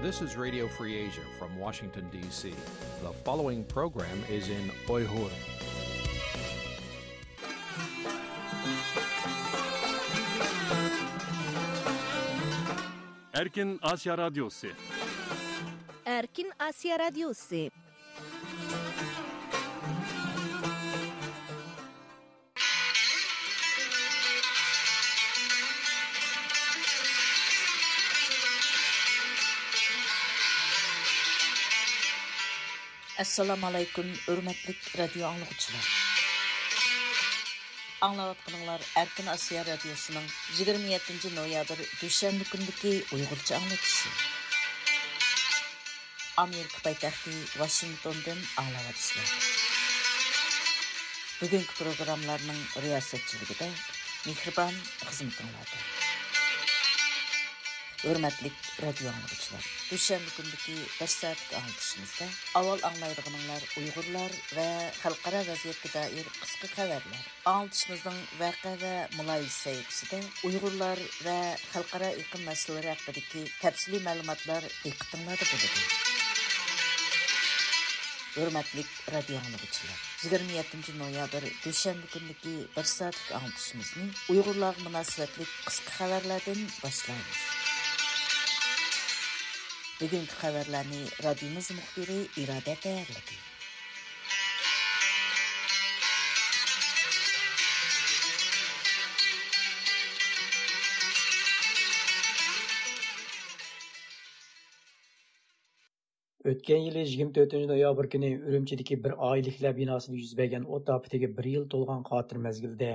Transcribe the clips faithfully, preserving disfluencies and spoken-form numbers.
This is Radio Free Asia from Washington, D C. The following program is in Uyghur. Erkin Asya Radyosu. Erkin Asya Radyosu. ئەسسالامۇ ئەلەيكۇم، ھۆرمەتلىك رادىيو ئاڭلىغۇچىلار. ئاڭلاۋاتقىنىڭلار ئەركىن ئاسىيا رادىيوسىنىڭ يىگىرمە يەتتىنچى نويابىر دۈشەنبە كۈنىدىكى ئۇيغۇرچە ئاڭلىتىشى. ئامېرىكا پايتەختى ۋاشىنگتوندىن ئاڭلاۋاتىسىلەر. بۈگۈنكى پروگراممىلارنىڭ رىياسەتچىلىكىدە مېھرىبان خىزمىتىڭلاردا. ھۆرمەتلىك رادىيو ئاڭلىغۇچىلار، دۈشەنبە كۈنىدىكى بىر سائەتلىك ئاڭلىتىشىمىزدا ئاۋۋال ئاڭلايدىغىنىڭلار ئۇيغۇرلار ۋە خەلقئارا ۋەزىيەتكە دائىر قىسقا خەۋەرلەر. ئاڭلىتىشىمىزنىڭ ۋەقە ۋە مۇلاھىزە سەھىپىسىدە ئۇيغۇرلار ۋە خەلقئارا ئېقىم مەسىلىلىرى ھەققىدىكى تەپسىلىي مەلۇماتلار دىققىتىڭلاردا بولىدۇ. ھۆرمەتلىك رادىيو ئاڭلىغۇچىلار، يىگىرمە يەتتىنچى نويابىر دۈشەنبە كۈنىدىكى بىر سائەتلىك ئاڭلىتىشىمىزنى ئۇيغۇرلارغا مۇناسىۋەتلىك قىسقا خەۋەرلەردىن باشلايمىز. بۈگۈنكى خەۋەرلەرنى رادىيومىز مۇخبىرى ئىرادە تەييارلىدى. ئۆتكەن يىلى يىگىرمە تۆتىنچى نويابىر كۈنى ئۈرۈمچىدىكى بىر ئائىلىلىكلەر بىناسىدا يۈز بەرگەن ئوت ئاپىتىگە بىر يىل تولغان خاتىرە مەزگىلىدە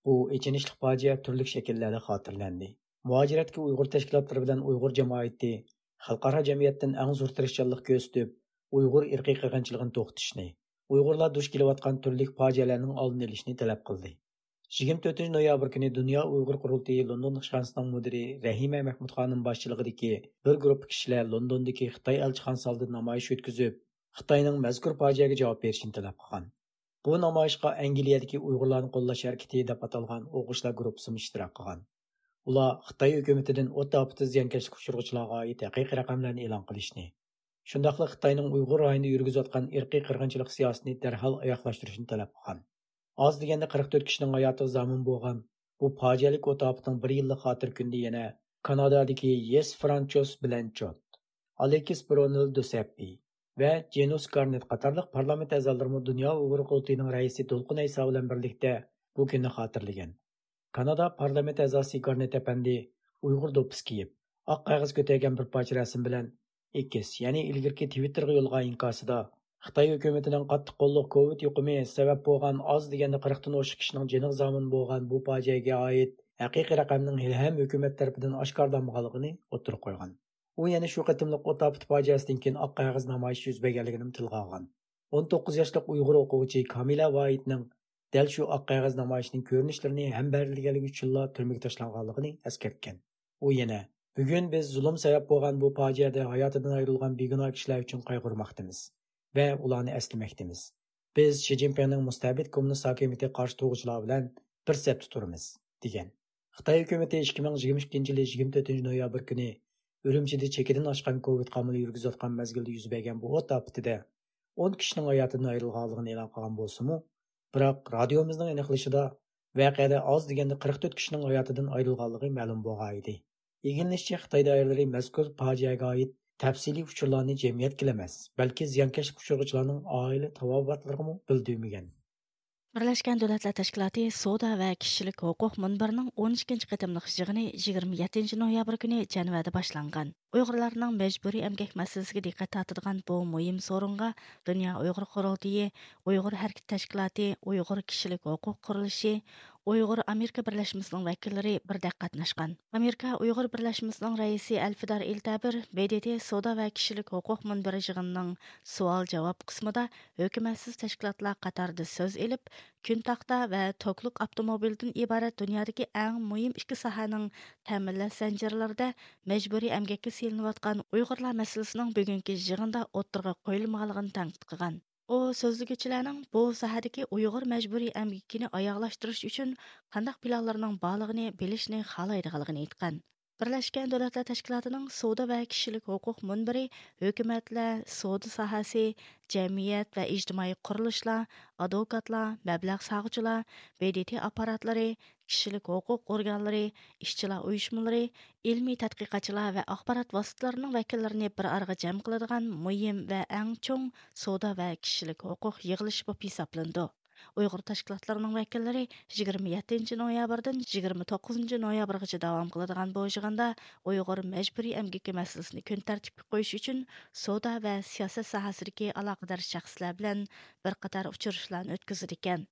بۇ ئېچىنىشلىق پاجىئە تۈرلۈك شەكىللەردە خاتىرىلەندى. مۇھاجىرەتتىكى ئۇيغۇر تەشكىلاتلىرى بىلەن ئۇيغۇر جامائىتى خەلقئارا جەمئىيەتتىن ئەڭ زور تىرىشچانلىق كۆرسىتىپ، ئۇيغۇر ئىرقىي قىرغىنچىلىقىنى توختىتىشنى، ئۇيغۇرلار دۇچ كېلىۋاتقان تۈرلۈك پاجىئەلەرنىڭ ئالدىنى ئېلىشنى تەلەپ قىلدى. يىگىرمە تۆتىنچى نويابىر كۈنى دۇنيا ئۇيغۇر قۇرۇلتىيى لوندون ئىشخانىسىنىڭ مۇدىرى رەھىمە مەھمۇد خانىم باشچىلىقىدىكى بىر گۇرۇپپا كىشىلەر لوندوندىكى خىتاي ئەلچىخانىسى ئالدىدا نامايىش ئۆتكۈزۈپ، خىتاينىڭ مەزكۇر پاجىئەگە جاۋاب بېرىشىنى تەلەپ قىلغان. بۇ نامايىشقا ئەنگلىيەدىكى ئۇيغۇرلارنى قوللاش ھەرىكىتى دەپ ئاتالغان ئوقۇغۇچىلار گۇرۇپپىسىمۇ ئىشتىراك قىلغان. ئۇلار خىتاي ھۆكۈمىتىدىن ئوت ئاپىتىدە زىيانكەشلىككە ئۇچرىغۇچىلارغا ئائىت ھەقىقىي رەقەملەرنى ئېلان قىلىشنى، شۇنداقلا خىتاينىڭ ئۇيغۇر رايونىدا يۈرگۈزۈۋاتقان ئىرقىي قىرغىنچىلىق سىياسىتىنى دەرھال ئاياغلاشتۇرۇشنى تەلەپ قىلغان. ئاز دېگەندە قىرىق تۆت كىشىنىڭ ھاياتىغا زامىن بولغان بۇ پاجىئەلىك ئوت ئاپىتىنىڭ بىر يىللىق خاتىرە كۈنىدە يەنە كانادادىكى يېس فرانچوس بلەنچوت، ئالېكس برونېل دوسەپپى ۋە جېنۇس گارنېت قاتارلىق پارلامېنت ئەزالىرىمۇ دۇنيا ئۇيغۇر قۇرۇلتىيىنىڭ رەئىسى دولقۇن ئەيسا بىلەن بىرلىكتە بۇ كۈننى خاتىرىلىگەن. كانادا پارلامېنت ئەزاسى گارنېت ئەپەندى ئۇيغۇر دوپپىسى كىيىپ، ئاق قەغەز كۆتەرگەن بىر پارچە رەسىم بىلەن ئېكس، يەنى ئىلگىرىكى تىۋىتتېرغا يوللىغان ئىنكاسىدا، خىتاي ھۆكۈمىتىنىڭ قاتتىق قوللۇق كوۋىد يۇقۇمى سەۋەب بولغان ئاز دېگەندە قىرىقتىن ئوشۇق كىشىنىڭ جېنىغا زامىن بولغان بۇ پاجىئەگە ئائىت ھەقىقىي رەقەمنىڭ ھېلىھەم ھۆكۈمەت تەرىپىدىن ئاشكارىلانمىغانلىقىنى ئوتتۇرىغا قويغان. ئۇ يەنە شۇ قېتىملىق ئوت ئاپىتى پاجىئەسىدىن كېيىن ئاق قەغەز نامايىشى يۈز بەرگەنلىكىنىمۇ تىلغا ئالغان. ئون توققۇز ياشلىق ئۇيغۇر ئوقۇغۇچى كامىلە ۋاھىتنىڭ دەل شۇ ئاق قەغەز نامايىشىنىڭ كۆرۈنۈشلىرىنى ھەمبەھىرلىگەنلىكى ئۈچۈنلا تۈرمىگە تاشلانغانلىقىنى ئەسكەرتكەن. ئۇ يەنە، بۈگۈن بىز زۇلۇم سەۋەب بولغان بۇ پاجىئەدە ھاياتىدىن ئايرىلغان بىگۇناھ كىشىلەر ئۈچۈن قايغۇرماقتىمىز ۋە ئۇلارنى ئەسلىمەكتىمىز. بىز شى جىنپىڭنىڭ مۇستەبىت كوممۇنىست ھاكىمىيىتىگە قارشى تۇرغۇچىلار بىلەن بىر سەپتە تۇرىمىز، دېگەن. خىتاي ھۆكۈمىتى ئىككى مىڭ يىگىرمە ئىككىنچى يىلى يىگىرمە تۆتىنچى نويابىر كۈنى ئۈرۈمچىدە چېكىدىن ئاشقان كوۋىد قامىلى يۈرگۈزۈۋاتقان مەزگىلدە يۈز بەرگەن بۇ ئوت ئاپىتىدە ئون كىشىنىڭ ھاياتىدىن ئايرىلغانلىقىنى ئېلان قىلغان بولسىمۇ، بىراق رادىيومىزنىڭ ئېنىقلىشىدا، ۋەقەدە ئاز دېگەندە قىرىق تۆت كىشىنىڭ ھاياتىدىن ئايرىلغانلىقى مەلۇم بولغانىدى. ئىگىلىنىشىچە، خىتاي دائىرىلىرى مەزكۇر پاجىئەگە ئائىت تەپسىلىي ئۇچۇرلارنى جەمئىيەتكىلا ئەمەس، بەلكى زىيانكەشلىككە ئۇچرىغۇچىلارنىڭ ئائىلە تاۋابىئاتلىرىغىمۇ بىلدۈرمىگەن. بىرلەشكەن دۆلەتلەر تەشكىلاتى سودا ۋە كىشىلىك ھوقۇق مۇنبىرىنىڭ ئون ئىككىنچى قېتىملىق يىغىنى يىگىرمە يەتتىنچى نويابىر كۈنى جەنۋەدە باشلانغان. ئۇيغۇرلارنىڭ مەجبۇرىي ئەمگەك مەسىلىسىگە دىققەت تارتىدىغان بۇ مۇھىم سورۇنغا دۇنيا ئۇيغۇر قۇرۇلتىيى، ئۇيغۇر ھەرىكىتى تەشكىلاتى، ئۇيغۇر كىشىلىك ھوقۇق قۇرۇلۇشى، ئۇيغۇر ئامېرىكا بىرلەشمىسىنىڭ ۋەكىللىرى بىردەك قاتناشقان. ئامېرىكا ئۇيغۇر بىرلەشمىسىنىڭ رەئىسى ئەلفىدار ئىلتەبىر ب د ت سودا ۋە كىشىلىك ھوقۇق مۇنبىرى يىغىنىنىڭ سوئال-جاۋاب قىسمىدا ھۆكۈمەتسىز تەشكىلاتلار قاتارىدا سۆز ئېلىپ، كۈن تاختا ۋە توكلۇق ئاپتوموبىلدىن ئىبارەت دۇنيادىكى ئەڭ مۇھىم ئىككى ساھەنىڭ تەمىنلەش زەنجىرلىرىدە مەجبۇرىي ئەمگەككە سېلىنىۋاتقان ئۇيغۇرلار مەسىلىسىنىڭ بۈگۈنكى يىغىندا ئوتتۇرىغا قويۇلمىغانلىقىنى تەنقىد قىلغان. ئۇ سۆزلىگۈچىلەرنىڭ بۇ ساھەدىكى ئۇيغۇر مەجبۇرىي ئەمگىكىنى ئاياغلاشتۇرۇش ئۈچۈن قانداق پىلانلىرىنىڭ بارلىقىنى بىلىشنى خالايدىغانلىقىنى ئېيتقان. بىرلەشكەن دۆلەتلەر تەشكىلاتىنىڭ سودا ۋە كىشىلىك ھوقۇق مۇنبىرى ھۆكۈمەتلەر، سودا ساھەسى، جەمئىيەت ۋە ئىجتىمائىي قۇرۇلۇشلار، ئادۋوكاتلار، مەبلەغ سالغۇچىلار، ب د ت ئاپپاراتلىرى، كىشىلىك ھوقۇق ئورگانلىرى، ئىشچىلار ئۇيۇشمىلىرى، ئىلمىي تەتقىقاتچىلار ۋە ئاخبارات ۋاسىتىلىرىنىڭ ۋەكىللىرىنى بىر ئارىغا جەم قىلىدىغان مۇھىم ۋە ئەڭ چوڭ سودا ۋە كىشىلىك ھوقۇق يىغىلىشى بولۇپ ھېسابلىنىدۇ. ئۇيغۇر تەشكىلاتلىرىنىڭ ۋەكىللىرى يىگىرمە يەتتىنچى نويابىردىن يىگىرمە توققۇزىنچى نويابىرغىچە داۋام قىلىدىغان بۇ يىغىندا ئۇيغۇر مەجبۇرىي ئەمگىكى مەسىلىسىنى كۈن تەرتىپكە قويۇش ئۈچۈن سودا ۋە سىياسەت ساھەسىدىكى ئالاقىدار شەخسلەر بىلەن بىر قاتار ئۇچرىشىشلارنى ئۆتكۈزىدىكەن.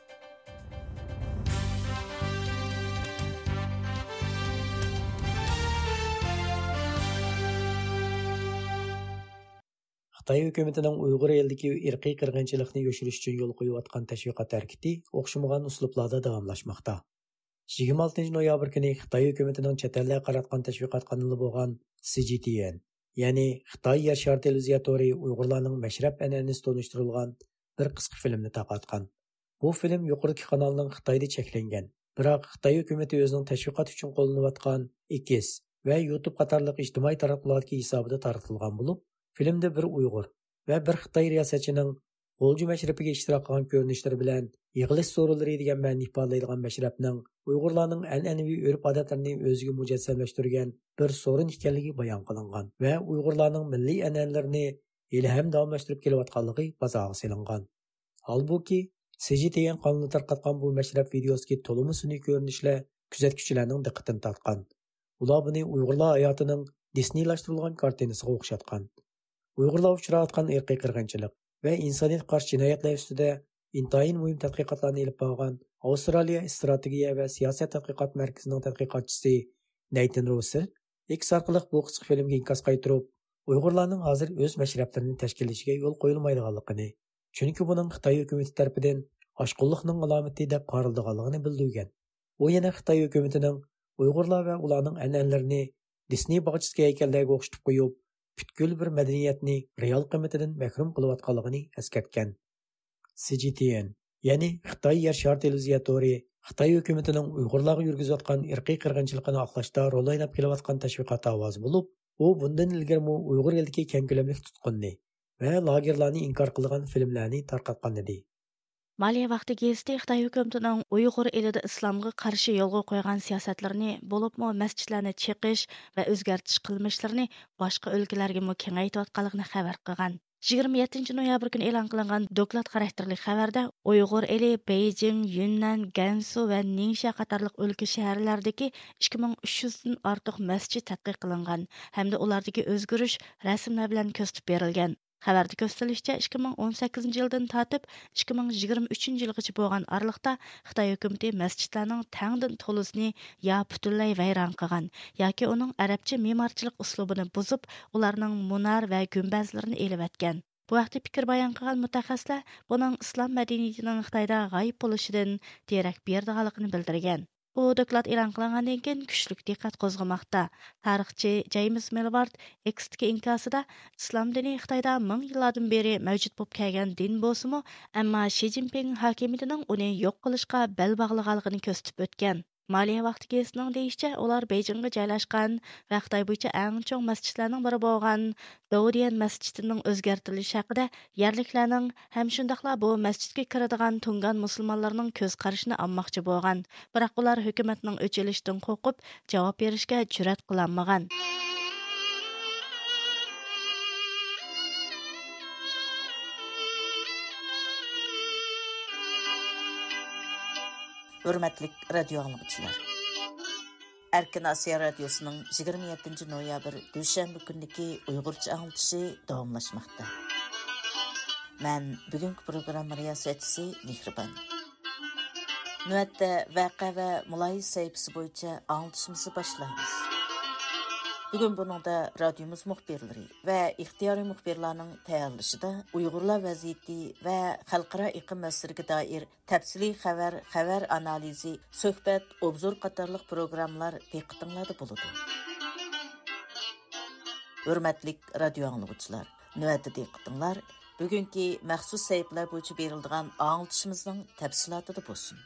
خىتاي ھۆكۈمىتىنىڭ ئۇيغۇر ئېلىدىكى ئىرقىي قىرغىنچىلىقنى يوشۇرۇش ئۈچۈن يولغا قويۇۋاتقان تەشۋىقات ھەرىكىتى ئوخشىمىغان ئۇسلۇبلاردا داۋاملاشماقتا. يىگىرمە ئالتىنچى نويابىر كۈنى خىتاي ھۆكۈمىتىنىڭ چەت ئەللەرگە قاراتقان تەشۋىقات قانىلى بولغان سى جى تي ئېن، يەنى خىتاي يەر شارى تېلېۋىزىيە تورى ئۇيغۇرلارنىڭ مەشرەپ ئەنئەنىسى تونۇشتۇرۇلغان بىر قىسقا فىلىمنى تارقاتقان. بۇ فىلىم يۇقىرىدىكى قانالنىڭ خىتايدا چەكلەنگەن، بىراق خىتاي ھۆكۈمىتى ئۆزىنىڭ تەشۋىقات ئۈچۈن قوللىنىۋاتقان ئېكس ۋە يۇتۇب قاتارلىق ئىجتىمائىي تاراتقۇلاردىكى ھېسابىدا تارقىتىلغان بولۇپ، فىلىمدە بىر ئۇيغۇر ۋە بىر خىتاي رىياسەتچىنىڭ غۇلجا مەشرىپىگە ئىشتىراك قىلغان كۆرۈنۈشلىرى بىلەن يىغىلىش سورۇنلىرى دېگەن مەنىنى ئىپادىلەيدىغان مەشرەپنىڭ ئۇيغۇرلارنىڭ ئەنئەنىۋى ئۆرپ-ئادەتلىرىنى ئۆزىگە مۇجەسسەملەشتۈرگەن بىر سورۇن ئىكەنلىكى بايان قىلىنغان ۋە ئۇيغۇرلارنىڭ مىللىي ئەنئەنىلىرىنى ھېلىھەم داۋاملاشتۇرۇپ كېلىۋاتقانلىقى بازارغا سېلىنغان. ھالبۇكى، سى جى تي ئېن قانىلى تارقاتقان بۇ مەشرەپ ۋىدىيوسىدىكى تولىمۇ سۈنئىي كۆرۈنۈشلەر كۆزەتكۈچىلەرنىڭ دىققىتىنى تارتقان. ئۇلار بۇنى ئۇيغۇرلار ھاياتىنىڭ دىسنېيلاشتۇرۇلغان كارتىنىسىغا ئوخشاتقان. ئۇيغۇرلار ئۇچراۋاتقان ئىرقىي قىرغىنچىلىق ۋە ئىنسانىيەتكە قارشى جىنايەتلەر ئۈستىدە ئىنتايىن مۇھىم تەتقىقاتلارنى ئېلىپ بارغان ئاۋسترالىيە ئىستراتېگىيە ۋە سىياسەت تەتقىقات مەركىزىنىڭ تەتقىقاتچىسى نەيتىن روسېل ئېكس ئارقىلىق بۇ قىسقا فىلىمگە ئىنكاس قايتۇرۇپ، ئۇيغۇرلارنىڭ ھازىر ئۆز مەشرەپلىرىنى تەشكىللىشىگە يول قويۇلمايدىغانلىقىنى، چۈنكى بۇنىڭ خىتاي ھۆكۈمىتى تەرىپىدىن ئاشقۇنلۇقنىڭ ئالامىتى دەپ قارىلىدىغانلىقىنى بىلدۈرگەن. ئۇ يەنە خىتاي ھۆكۈمىتىنىڭ ئۇيغۇرلار ۋە ئۇلارنىڭ ئەنئەنىلىرىنى دىسنېي باغچىسىدىكى ھەيكەللەرگە ئوخشىتىپ قويۇپ، پۈتكۈل بىر مەدەنىيەتنى رېئال قىممىتىدىن مەھرۇم قىلىۋاتقانلىقىنى ئەسكەرتكەن. سى جى تي ئېن، يەنى خىتاي يەر شارى تېلېۋىزىيە تورى خىتاي ھۆكۈمىتىنىڭ ئۇيغۇرلارغا يۈرگۈزۈۋاتقان ئىرقىي قىرغىنچىلىقىنى ئاقلاشتا رول ئويناپ كېلىۋاتقان تەشۋىقات ئاۋازى بولۇپ، ئۇ بۇندىن ئىلگىرىمۇ ئۇيغۇر ئېلىدىكى كەڭ كۆلەملىك تۇتقۇننى ۋە لاگېرلارنى ئىنكار قىلىدىغان فىلىملەرنى تارقاتقان ئىدى. مالىيە ۋاقتى گېزىتى خىتاي ھۆكۈمىتىنىڭ ئۇيغۇر ئېلىدە ئىسلامغا قارشى يولغا قويغان سىياسەتلىرىنى، بولۇپمۇ مەسچىتلەرنى چېقىش ۋە ئۆزگەرتىش قىلمىشلىرىنى باشقا ئۆلكىلەرگىمۇ كېڭەيتىۋاتقانلىقىنى خەۋەر قىلغان. يىگىرمە يەتتىنچى نويابىر كۈنى ئېلان قىلىنغان دوكلات خاراكتېرلىك خەۋەردە، ئۇيغۇر ئېلى بېيجىڭ، يۈننەن، گەنسۇ ۋە نىڭشيا قاتارلىق ئۆلكە شەھەرلەردىكى ئىككى مىڭ ئۈچ يۈزدىن ئارتۇق مەسچىت تەتقىق قىلىنغان ھەمدە ئۇلاردىكى ئۆزگىرىش رەسىملەر بىلەن كۆرسىتىپ بېرىلگەن. خەۋەردە كۆرسىتىلىشىچە، ئىككى مىڭ ئون سەككىزىنچى يىلدىن تارتىپ ئىككى مىڭ يىگىرمە ئۈچىنچى يىلغىچە بولغان ئارىلىقتا خىتاي ھۆكۈمىتى مەسچىتلەرنىڭ تەڭدىن تولىسىنى يا پۈتۈنلەي ۋەيران قىلغان، ياكى ئۇنىڭ ئەرەبچە مېمارچىلىق ئۇسلۇبىنى بۇزۇپ، ئۇلارنىڭ مۇنار ۋە گۈمبەزلىرىنى ئېلىۋەتكەن. بۇ ھەقتە پىكىر بايان قىلغان مۇتەخەسسىسلەر بۇنىڭ ئىسلام مەدەنىيىتىنىڭ خىتايدا غايىب بولۇشىدىن دېرەك بېرىدىغانلىقىنى بىلدۈرگەن. بۇ دوكلات ئېلان قىلىنغاندىن كېيىن كۈچلۈك دىققەت قوزغىماقتا. تارىخچى جەيمىس مىلۋارد ئېكستىكى ئىنكاسىدا، ئىسلام دىنى خىتايدا مىڭ يىللاردىن بېرى مەۋجۇت بولۇپ كەلگەن دىن بولسىمۇ، ئەمما شى جىنپىڭ ھاكىمىيىتىنىڭ ئۇنى يوق قىلىشقا بەل باغلىغانلىقىنى كۆرسىتىپ ئۆتكەن. مالىيە ۋاقتى گېزىتىنىڭ دېيىشىچە، ئۇلار بېيجىڭغا جايلاشقان ۋە خىتاي بويىچە ئەڭ چوڭ مەسچىتلەرنىڭ بىرى بولغان داۋديەن مەسچىتىنىڭ ئۆزگەرتىلىشى ھەققىدە يەرلىكلەرنىڭ ھەم شۇنداقلا بۇ مەسچىتكە كىرىدىغان تۇڭگان مۇسۇلمانلارنىڭ كۆز قارىشىنى ئالماقچى بولغان. بىراق ئۇلار ھۆكۈمەتنىڭ ئۆچ ئېلىشىدىن قورقۇپ، جاۋاب بېرىشكە جۈرئەت قىلالمىغان. ھۆرمەتلىك رادىيو ئاڭلىغۇچىلار! ئەركىن ئاسىيا رادىيوسىنىڭ يىگىرمە يەتتىنچى نويابىر دۈشەنبە كۈنىدىكى ئۇيغۇرچە ئاڭلىتىشى داۋاملاشماقتا. مەن بۈگۈنكى پروگرامما رىياسەتچىسى مېھرىبان. نۆۋەتتە ۋەقە ۋە مۇلاھىزە سەھىپىسى بويىچە ئاڭلىتىشىمىزنى باشلايمىز. بۈگۈن بۇنىڭدا رادىيومىز مۇخبىرلىرى ۋە ئىختىيارىي مۇخبىرلارنىڭ تەييارلىشىدا ئۇيغۇرلار ۋەزىيىتى ۋە خەلقئارا ئېقىم مەسىلىگە دائىر تەپسىلىي خەۋەر، خەۋەر ئانالىزى، سۆھبەت، ئوبزور قاتارلىق پروگراممىلار دىققىتىڭلاردا بولىدۇ. ھۆرمەتلىك رادىيو ئاڭلىغۇچىلار، نۆۋەتتە دىققىتىڭلار بۈگۈنكى مەخسۇس سەھىپىلەر بويىچە بېرىلىدىغان ئاڭلىتىشىمىزنىڭ تەپسىلاتىدا بولسۇن.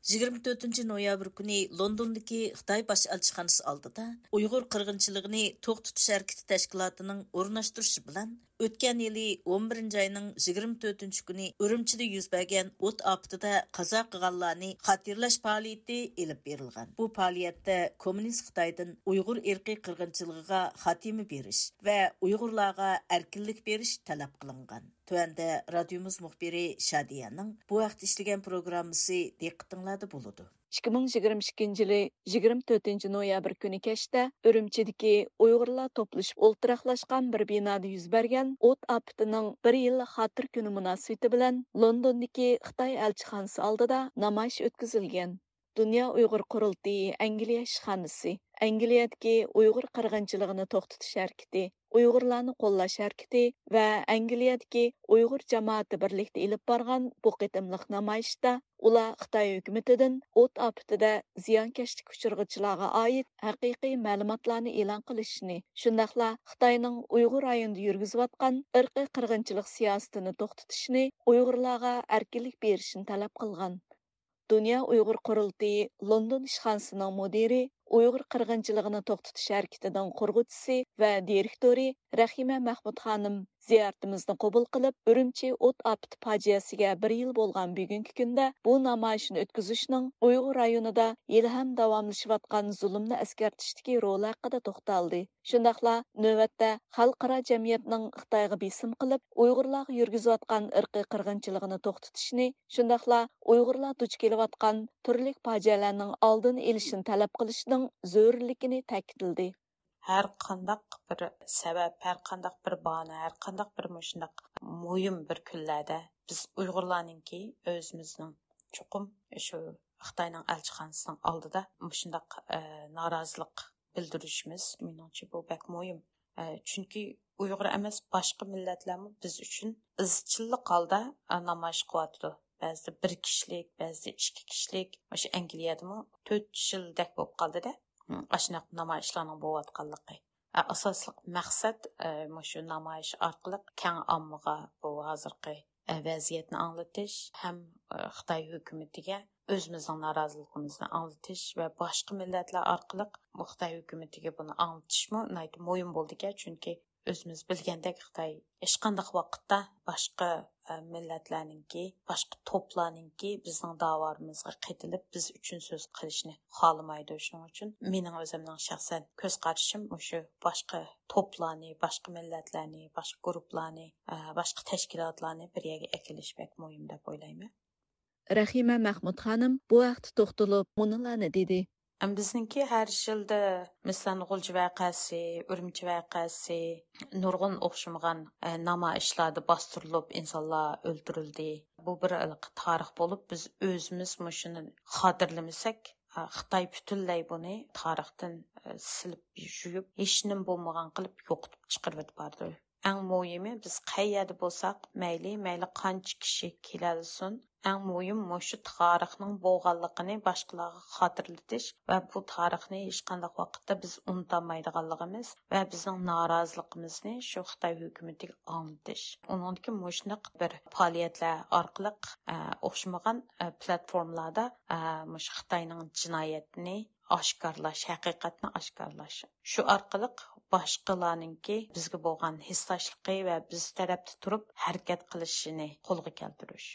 يىگىرمە تۆتىنچى نويابىر كۈنى لوندوندىكى خىتاي باش ئەلچىخانىسى ئالدىدا ئۇيغۇر قىرغىنچىلىقىنى توختىتىش ھەرىكىتى تەشكىلاتىنىڭ ئورۇنلاشتۇرۇشى بىلەن ئۆتكەن يىلى ئون بىرىنچى ئاينىڭ يىگىرمە تۆتىنچى كۈنى ئۈرۈمچىدە يۈز بەرگەن ئوت ئاپىتىدە قازا قىلغانلارنى خاتىرىلەش پائالىيىتى ئېلىپ بېرىلغان. بۇ پائالىيەتتە كوممۇنىست خىتايدىن ئۇيغۇر ئىرقىي قىرغىنچىلىقىغا خاتىمە بېرىش ۋە ئۇيغۇرلارغا ئەركىنلىك بېرىش تەلەپ قىلىنغان. تۆۋەندە رادىيومىز مۇخبىرى شادىيەنىڭ بۇ ھەقتە ئىشلىگەن پروگراممىسى دىققىتىڭلاردا بولىدۇ. ئىككى مىڭ يىگىرمە ئىككىنچى يىلى يىگىرمە تۆتىنچى نويابىر كۈنى كەچتە ئۈرۈمچىدىكى ئۇيغۇرلار توپلىشىپ ئولتۇراقلاشقان بىر بىنادا يۈز بەرگەن ئوت ئاپىتىنىڭ بىر يىللىق خاتىرە كۈنى مۇناسىۋىتى بىلەن لوندوندىكى خىتاي ئەلچىخانىسى ئالدىدا نامايىش ئۆتكۈزۈلگەن. دۇنيا ئۇيغۇر قۇرۇلتىيى ئەنگلىيە ئىشخانىسى، ئەنگلىيەدىكى ئۇيغۇر قىرغىنچىلىقىنى توختىتىش ھەرىكىتى، ئۇيغۇرلارنى قوللاش ھەرىكىتى ۋە ئەنگلىيەدىكى ئۇيغۇر جامائىتى بىرلىكتە ئېلىپ بارغان بۇ قېتىملىق نامايىشتا ئۇلار خىتاي ھۆكۈمىتىدىن ئوت ئاپىتىدە زىيانكەشلىككە ئۇچرىغۇچىلارغا ئائىت ھەقىقىي مەلۇماتلارنى ئېلان قىلىشنى، شۇنداقلا خىتاينىڭ ئۇيغۇر رايونىدا يۈرگۈزۈۋاتقان ئىرقىي قىرغىنچىلىق سىياسىتىنى توختىتىشنى، ئۇيغۇرلارغا ئەركىنلىك بېرىشنى تەلەپ قىلغان. دۇنيا ئۇيغۇر قۇرۇلتىيى لوندون ئىشخانىسىنىڭ مۇدىرى، ئۇيغۇر قىرغىنچىلىقىنى توختىتىش ھەرىكىتىنىڭ قۇرغۇچىسى ۋە دىرېكتورى رەھىمە مەخمۇت خانىم زىيارىتىمىزنى قوبۇل قىلىپ، ئۈرۈمچى ئوت ئاپىتى پاجىئەسىگە بىر يىل بولغان بۈگۈنكى كۈندە بۇ نامايىشنى ئۆتكۈزۈشنىڭ ئۇيغۇر رايونىدا ھېلىھەم داۋاملىشىۋاتقان زۇلۇمنى ئەسكەرتىشتىكى رولى ھەققىدە توختالدى. شۇنداقلا نۆۋەتتە خەلقئارا جەمئىيەتنىڭ خىتايغا بېسىم قىلىپ، ئۇيغۇرلارغا يۈرگۈزۈۋاتقان ئىرقىي قىرغىنچىلىقىنى توختىتىشنى، شۇنداقلا ئۇيغۇرلار دۇچ كېلىۋاتقان تۈرلۈك پاجىئەلەرنىڭ ئالدىنى ئېلىشنى تەلەپ قىلىشنىڭ زۆرۈرلۈكىنى تەكىتلىدى. ھەر قانداق بىر سەۋەب، ھەر قانداق بىر باھانە، ھەر قانداق بىر مۇشۇنداق مۇھىم بىر كۈنلەردە بىز ئۇيغۇرلارنىڭكى ئۆزىمىزنىڭ چوقۇم شۇ خىتاينىڭ ئەلچىخانىسىنىڭ ئالدىدا مۇشۇنداق، ئە، نارازىلىق بىلدۈرۈشىمىز، مېنىڭچە، بۇ بەك مۇھىم. ئە، چۈنكى ئۇيغۇر ئەمەس، باشقا مىللەتلەرمۇ بىز ئۈچۈن ئىزچىللىق ھالدا، ئە، نامايىش قىلىۋاتىدۇ. بەزىدە بىر كىشىلىك، بەزىدە ئىككى كىشىلىك. مۇشۇ ئەنگلىيەدىمۇ تۆت يىلدەك بولۇپ قالدىدە، ئاشۇنداق نامايىشلارنىڭ بولۇۋاتقانلىقى. ئە، ئاساسلىق مەقسەت، ئە، مۇشۇ نامايىش ئارقىلىق كەڭ ئاممىغا بۇ ھازىرقى، ئە، ۋەزىيەتنى ئاڭلىتىش ھەم، ئە، خىتاي ھۆكۈمىتىگە ئۆزىمىزنىڭ نارازىلىقىمىزنى ئاڭلىتىش ۋە باشقا مىللەتلەر ئارقىلىق بۇ خىتاي ھۆكۈمىتىگە بۇنى ئاڭلىتىشمۇ ناھايىتى مۇھىم بولىدىكەن، چۈنكى ئۆزىمىز بىلگەندەك، خىتاي ھېچقانداق ۋاقىتتا باشقا، ئە، مىللەتلەرنىڭكى، باشقا توپلارنىڭكى بىزنىڭ داۋالىرىمىزغا قېتىلىپ، بىز ئۈچۈن سۆز قىلىشنى خالىمايدۇ. شۇنىڭ ئۈچۈن مېنىڭ ئۆزۈمنىڭ شەخسەن كۆز قارىشىم مۇشۇ باشقا توپلارنى، باشقا مىللەتلەرنى، باشقا گۇرۇپپىلارنى، ئە، باشقا تەشكىلاتلارنى بىر يەرگە ئەكېلىش بەك مۇھىم دەپ ئويلايمەن. رەھىمە مەخمۇت خانىم بۇ ھەقتە توختىلىپ مۇنۇلارنى دېدى. ئەم، بىزنىڭكى ھەر يىلدا، مەسىلەن، غۇلجا ۋەقەسى، ئۈرۈمچى ۋەقەسى، نۇرغۇن ئوخشىمىغان، ئە، نامايىشلاردا باستۇرۇلۇپ، ئىنسانلار ئۆلتۈرۈلدى. بۇ بىر ھېلىقى تارىخ بولۇپ، بىز ئۆزىمىز مۇشۇنى خاتىرىلىمىسەك، ئە، خىتاي پۈتۈنلەي بۇنى تارىختىن، ئە، سىلىپ يۇيۇپ، ھېچنېمە بولمىغان قىلىپ يوقىتىپ چىقىرىۋېتىپ بارىدۇ. ئەڭ مۇھىمى، بىز قەي يەردە بولساق مەيلى، مەيلى قانچە كىشى كېلەلىسۇن، ئەڭ مۇھىم مۇشۇ تارىخنىڭ بولغانلىقىنى باشقىلارغا خاتىرىلىتىش ۋە بۇ تارىخنى ھېچقانداق ۋاقىتتا بىز ئۇنتالمايدىغانلىقىمىز ۋە بىزنىڭ نارازىلىقىمىزنى شۇ خىتاي ھۆكۈمىتىگە ئاڭلىتىش. ئۇنىڭدىكى مۇشۇنداق بىر پائالىيەتلەر ئارقىلىق، ئە، ئوخشىمىغان، ئە، پلاتفورمىلاردا، ئە، مۇشۇ خىتاينىڭ جىنايەتنى ئاشكارىلاش، ھەقىقەتنى ئاشكارىلاش. شۇ ئارقىلىق باشقىلارنىڭكى بىزگە بولغان ھېسداشلىقى ۋە بىز تەرەپتە تۇرۇپ ھەرىكەت قىلىشىنى قولغا كەلتۈرۈش.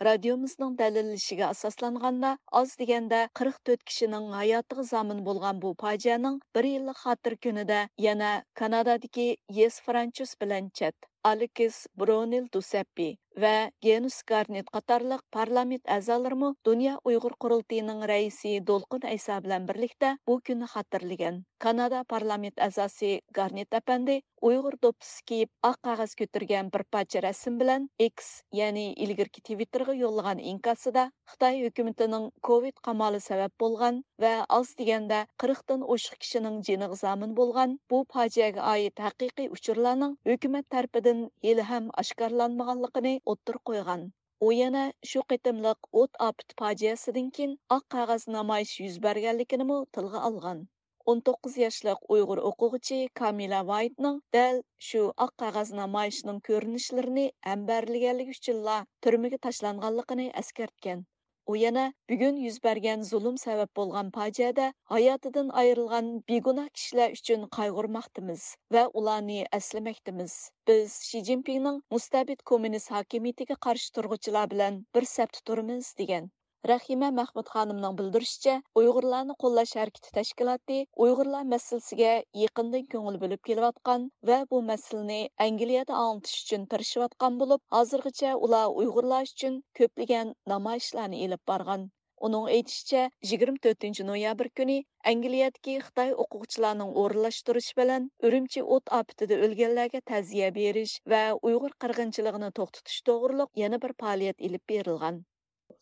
رادىيومىزنىڭ دەلىللىشىگە ئاساسلانغاندا، ئاز دېگەندە قىرىق تۆت كىشىنىڭ ھاياتىغا زامىن بولغان بۇ پاجىئەنىڭ بىر يىللىق خاتىرە كۈنىدە يەنە كانادادىكى يېس فرانچۇس بىلەن چەت، ئالېكس برونېل دوسەپپى ۋە گېنۇس گارنېت قاتارلىق پارلامېنت ئەزالىرىمۇ دۇنيا ئۇيغۇر قۇرۇلتىيىنىڭ رەئىسى دولقۇن ئەيسا بىلەن بىرلىكتە بۇ كۈننى خاتىرىلىگەن. كانادا پارلامېنت ئەزاسى گارنېت ئەپەندى ئۇيغۇر دوپپىسى كىيىپ، ئاق قەغەز كۆتۈرگەن بىر پارچە رەسىم بىلەن ئېكس، يەنى ئىلگىرىكى تىۋىتتېرغا يوللىغان ئىنكاسىدا، خىتاي ھۆكۈمىتىنىڭ كوۋىد قامالى سەۋەب بولغان ۋە ئاز دېگەندە قىرىقتىن ئوشۇق كىشىنىڭ جېنىغا زامىن بولغان بۇ پاجىئەگە ئائىت ھەقىقىي ئۇچۇرلارنىڭ ھۆكۈمەت تەرىپىدىن ھېلىھەم ئاشكارىلانمىغانلىقىنى ئوتتۇرىغا قويغان. ئۇ يەنە شۇ قېتىملىق ئوت ئاپىتى پاجىئەسىدىن كېيىن ئاق قەغەز نامايىشى يۈز بەرگەنلىكىنىمۇ تىلغا ئالغان. ئون توققۇز ياشلىق ئۇيغۇر ئوقۇغۇچى كامىلە ۋايتنىڭ دەل شۇ ئاق قەغەز نامايىشىنىڭ كۆرۈنۈشلىرىنى ھەمبەرلىگەنلىكى ئۈچۈنلا تۈرمىگە تاشلانغانلىقىنى ئەسكەرتكەن. ئۇ يەنە بۈگۈن يۈز بەرگەن زۇلۇم سەۋەب بولغان پاجىئەدە ھاياتىدىن ئايرىلغان بىگۇناھ كىشىلەر ئۈچۈن قايغۇرماقتىمىز ۋە ئۇلارنى ئەسلىمەكتىمىز. بىز شى جىنپىڭنىڭ مۇستەبىت كوممۇنىست ھاكىمىيىتىگە قارشى تۇرغۇچىلار بىلەن بىر سەپتە تۇرىمىز، دېگەن. رەھىمە مەخمۇت خانىمنىڭ بىلدۈرۈشىچە، ئۇيغۇرلارنى قوللاش ھەرىكىتى تەشكىلاتى ئۇيغۇرلار مەسىلىسىگە يېقىندىن كۆڭۈل بۆلۈپ كېلىۋاتقان ۋە بۇ مەسىلىنى ئەنگلىيەدە ئاڭلىتىش ئۈچۈن تىرىشىۋاتقان بولۇپ، ھازىرغىچە ئۇلار ئۇيغۇرلار ئۈچۈن كۆپلىگەن نامايىشلارنى ئېلىپ بارغان. ئۇنىڭ ئېيتىشىچە، يىگىرمە تۆتىنچى نويابىر كۈنى ئەنگلىيەدىكى خىتاي ئوقۇغۇچىلارنىڭ ئورۇنلاشتۇرۇشى بىلەن ئۈرۈمچى ئوت ئاپىتىدە ئۆلگەنلەرگە تەزىيە بېرىش ۋە ئۇيغۇر قىرغىنچىلىقىنى توختىتىش توغرۇلۇق يەنە بىر پائالىيەت ئېلىپ بېرىلغان.